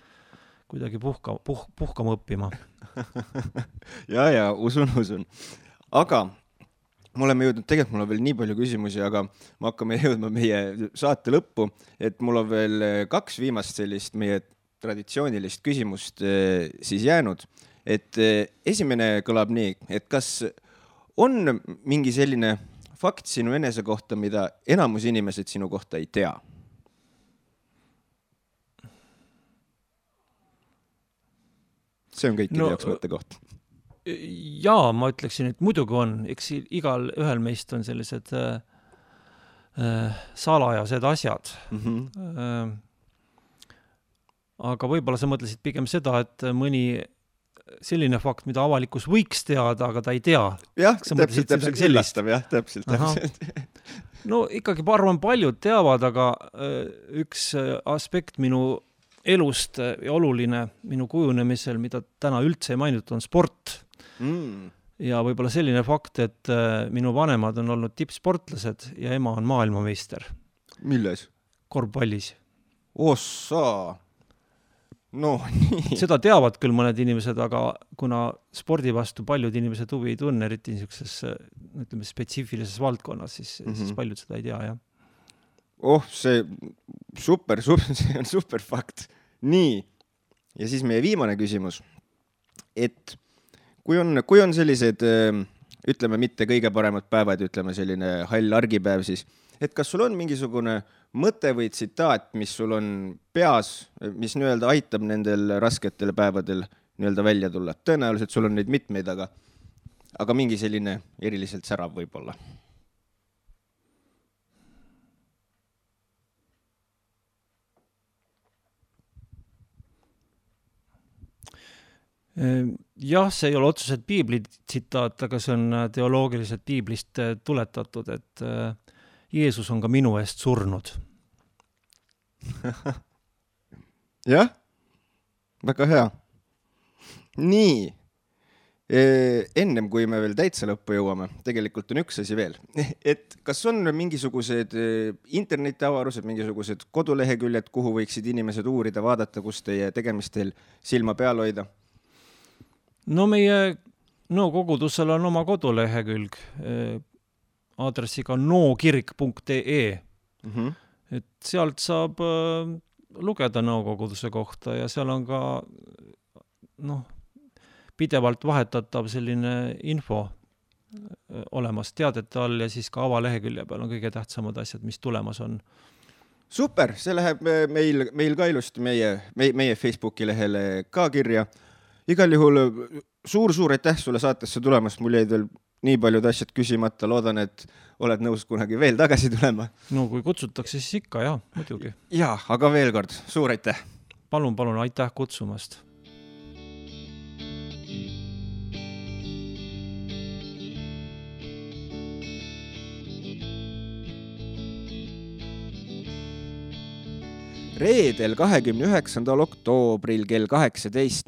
kuidagi puhkama õppima. ja, usun. Aga me oleme jõudnud, tegelikult mul on veel nii palju küsimusi, aga me hakkame jõudma meie saate lõppu, et mul on veel 2 viimast sellist meie traditsioonilist küsimust siis jäänud. Et esimene kõlab nii, et kas on mingi selline fakt sinu enese kohta, mida enamus inimesed sinu kohta ei tea? See on kõikide jaoks mõttekoht. Jaa, ma ütleksin, et muidugi on. Eks igal ühel meist on sellised salajased asjad. Aga võib-olla sa mõtlesid pigem seda, et mõni selline fakt, mida avalikkus võiks teada, aga ta ei tea. Jah, täpselt üllastav, jah, täpselt. No ikkagi arvan paljud teavad, aga üks aspekt minu elust ja oluline minu kujunemisel, mida täna üldse ei mainitud, on sport. Ja võib-olla selline fakt, et minu vanemad on olnud tippsportlased ja ema on maailmameister. Milles? Korvpallis. Ossa! No, nii. Seda teavad küll mõned inimesed, aga kuna spordi vastu paljud inimesed huvi ei tunne, eriti niisuguses, ütleme, spetsiifilises valdkonnas, siis paljud seda ei tea, jah. See see on super fakt. Nii, ja siis meie viimane küsimus, et kui on sellised, ütleme, mitte kõige paremad päevad, ütleme selline hall argipäev, siis, et kas sul on mingisugune mõte või tsitaat, mis sul on peas, mis nii-öelda aitab nendel rasketel päevadel nii-öelda välja tulla? Tõenäoliselt sul on neid mitmeid, aga mingi selline eriliselt särav võib-olla. Jah, see ei ole otseselt piibli tsitaat, aga see on teoloogiliselt piiblist tuletatud, et Jeesus on ka minu eest surnud. Jah, väga hea. Nii, ennem kui me veel täitsa lõppu jõuame, tegelikult on üks asi veel, et kas on mingisugused internetiavarused, mingisugused koduleheküljed, kuhu võiksid inimesed uurida, vaadata, kus teie tegemistel silma peal hoida? No meie kogudusel on oma kodulehekülg aadressiga nookirk.ee. Et sealt saab lugeda nõukoguduse kohta ja seal on ka pidevalt vahetatav selline info olemas teadete all ja siis ka avalehekülje peal on kõige tähtsamad asjad, mis tulemas on. Super, see läheb meil ka ilusti meie Facebooki lehele ka kirja. Igal juhul suur aitäh sulle saatesse tulemast, mul jäid veel nii paljud asjad küsimata, loodan, et oled nõus kunagi veel tagasi tulema. No kui kutsutakse, siis ikka, jah, muidugi. Jaa, aga veel kord, suur aitäh! Palun, aitäh kutsumast! Reedel 29. oktoobril kell 18.00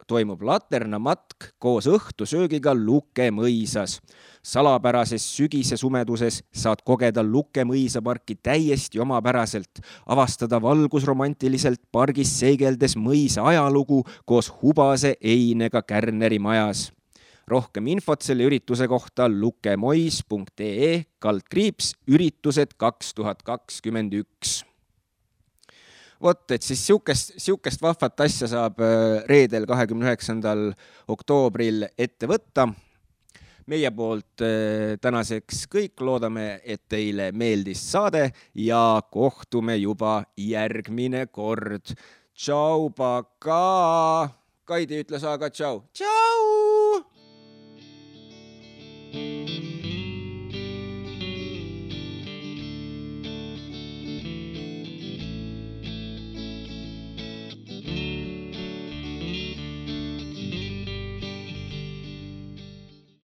toimub laternamatk koos õhtusöögiga Luke mõisas. Salapärases sügise sumeduses saad kogeda Luke mõisaparki täiesti omapäraselt, avastada valgusromantiliselt pargis seigeldes mõisa ajalugu koos hubase einega Kärneri majas. Rohkem infot selle ürituse kohta lukemois.ee/üritused 2021. Vot, et siis siukest vahvat asja saab reedel 29. oktoobril ette võtta. Meie poolt tänaseks kõik, loodame, et teile meeldis saade ja kohtume juba järgmine kord. Tšau, paka! Kaidi ütles aga tšau. Tšau!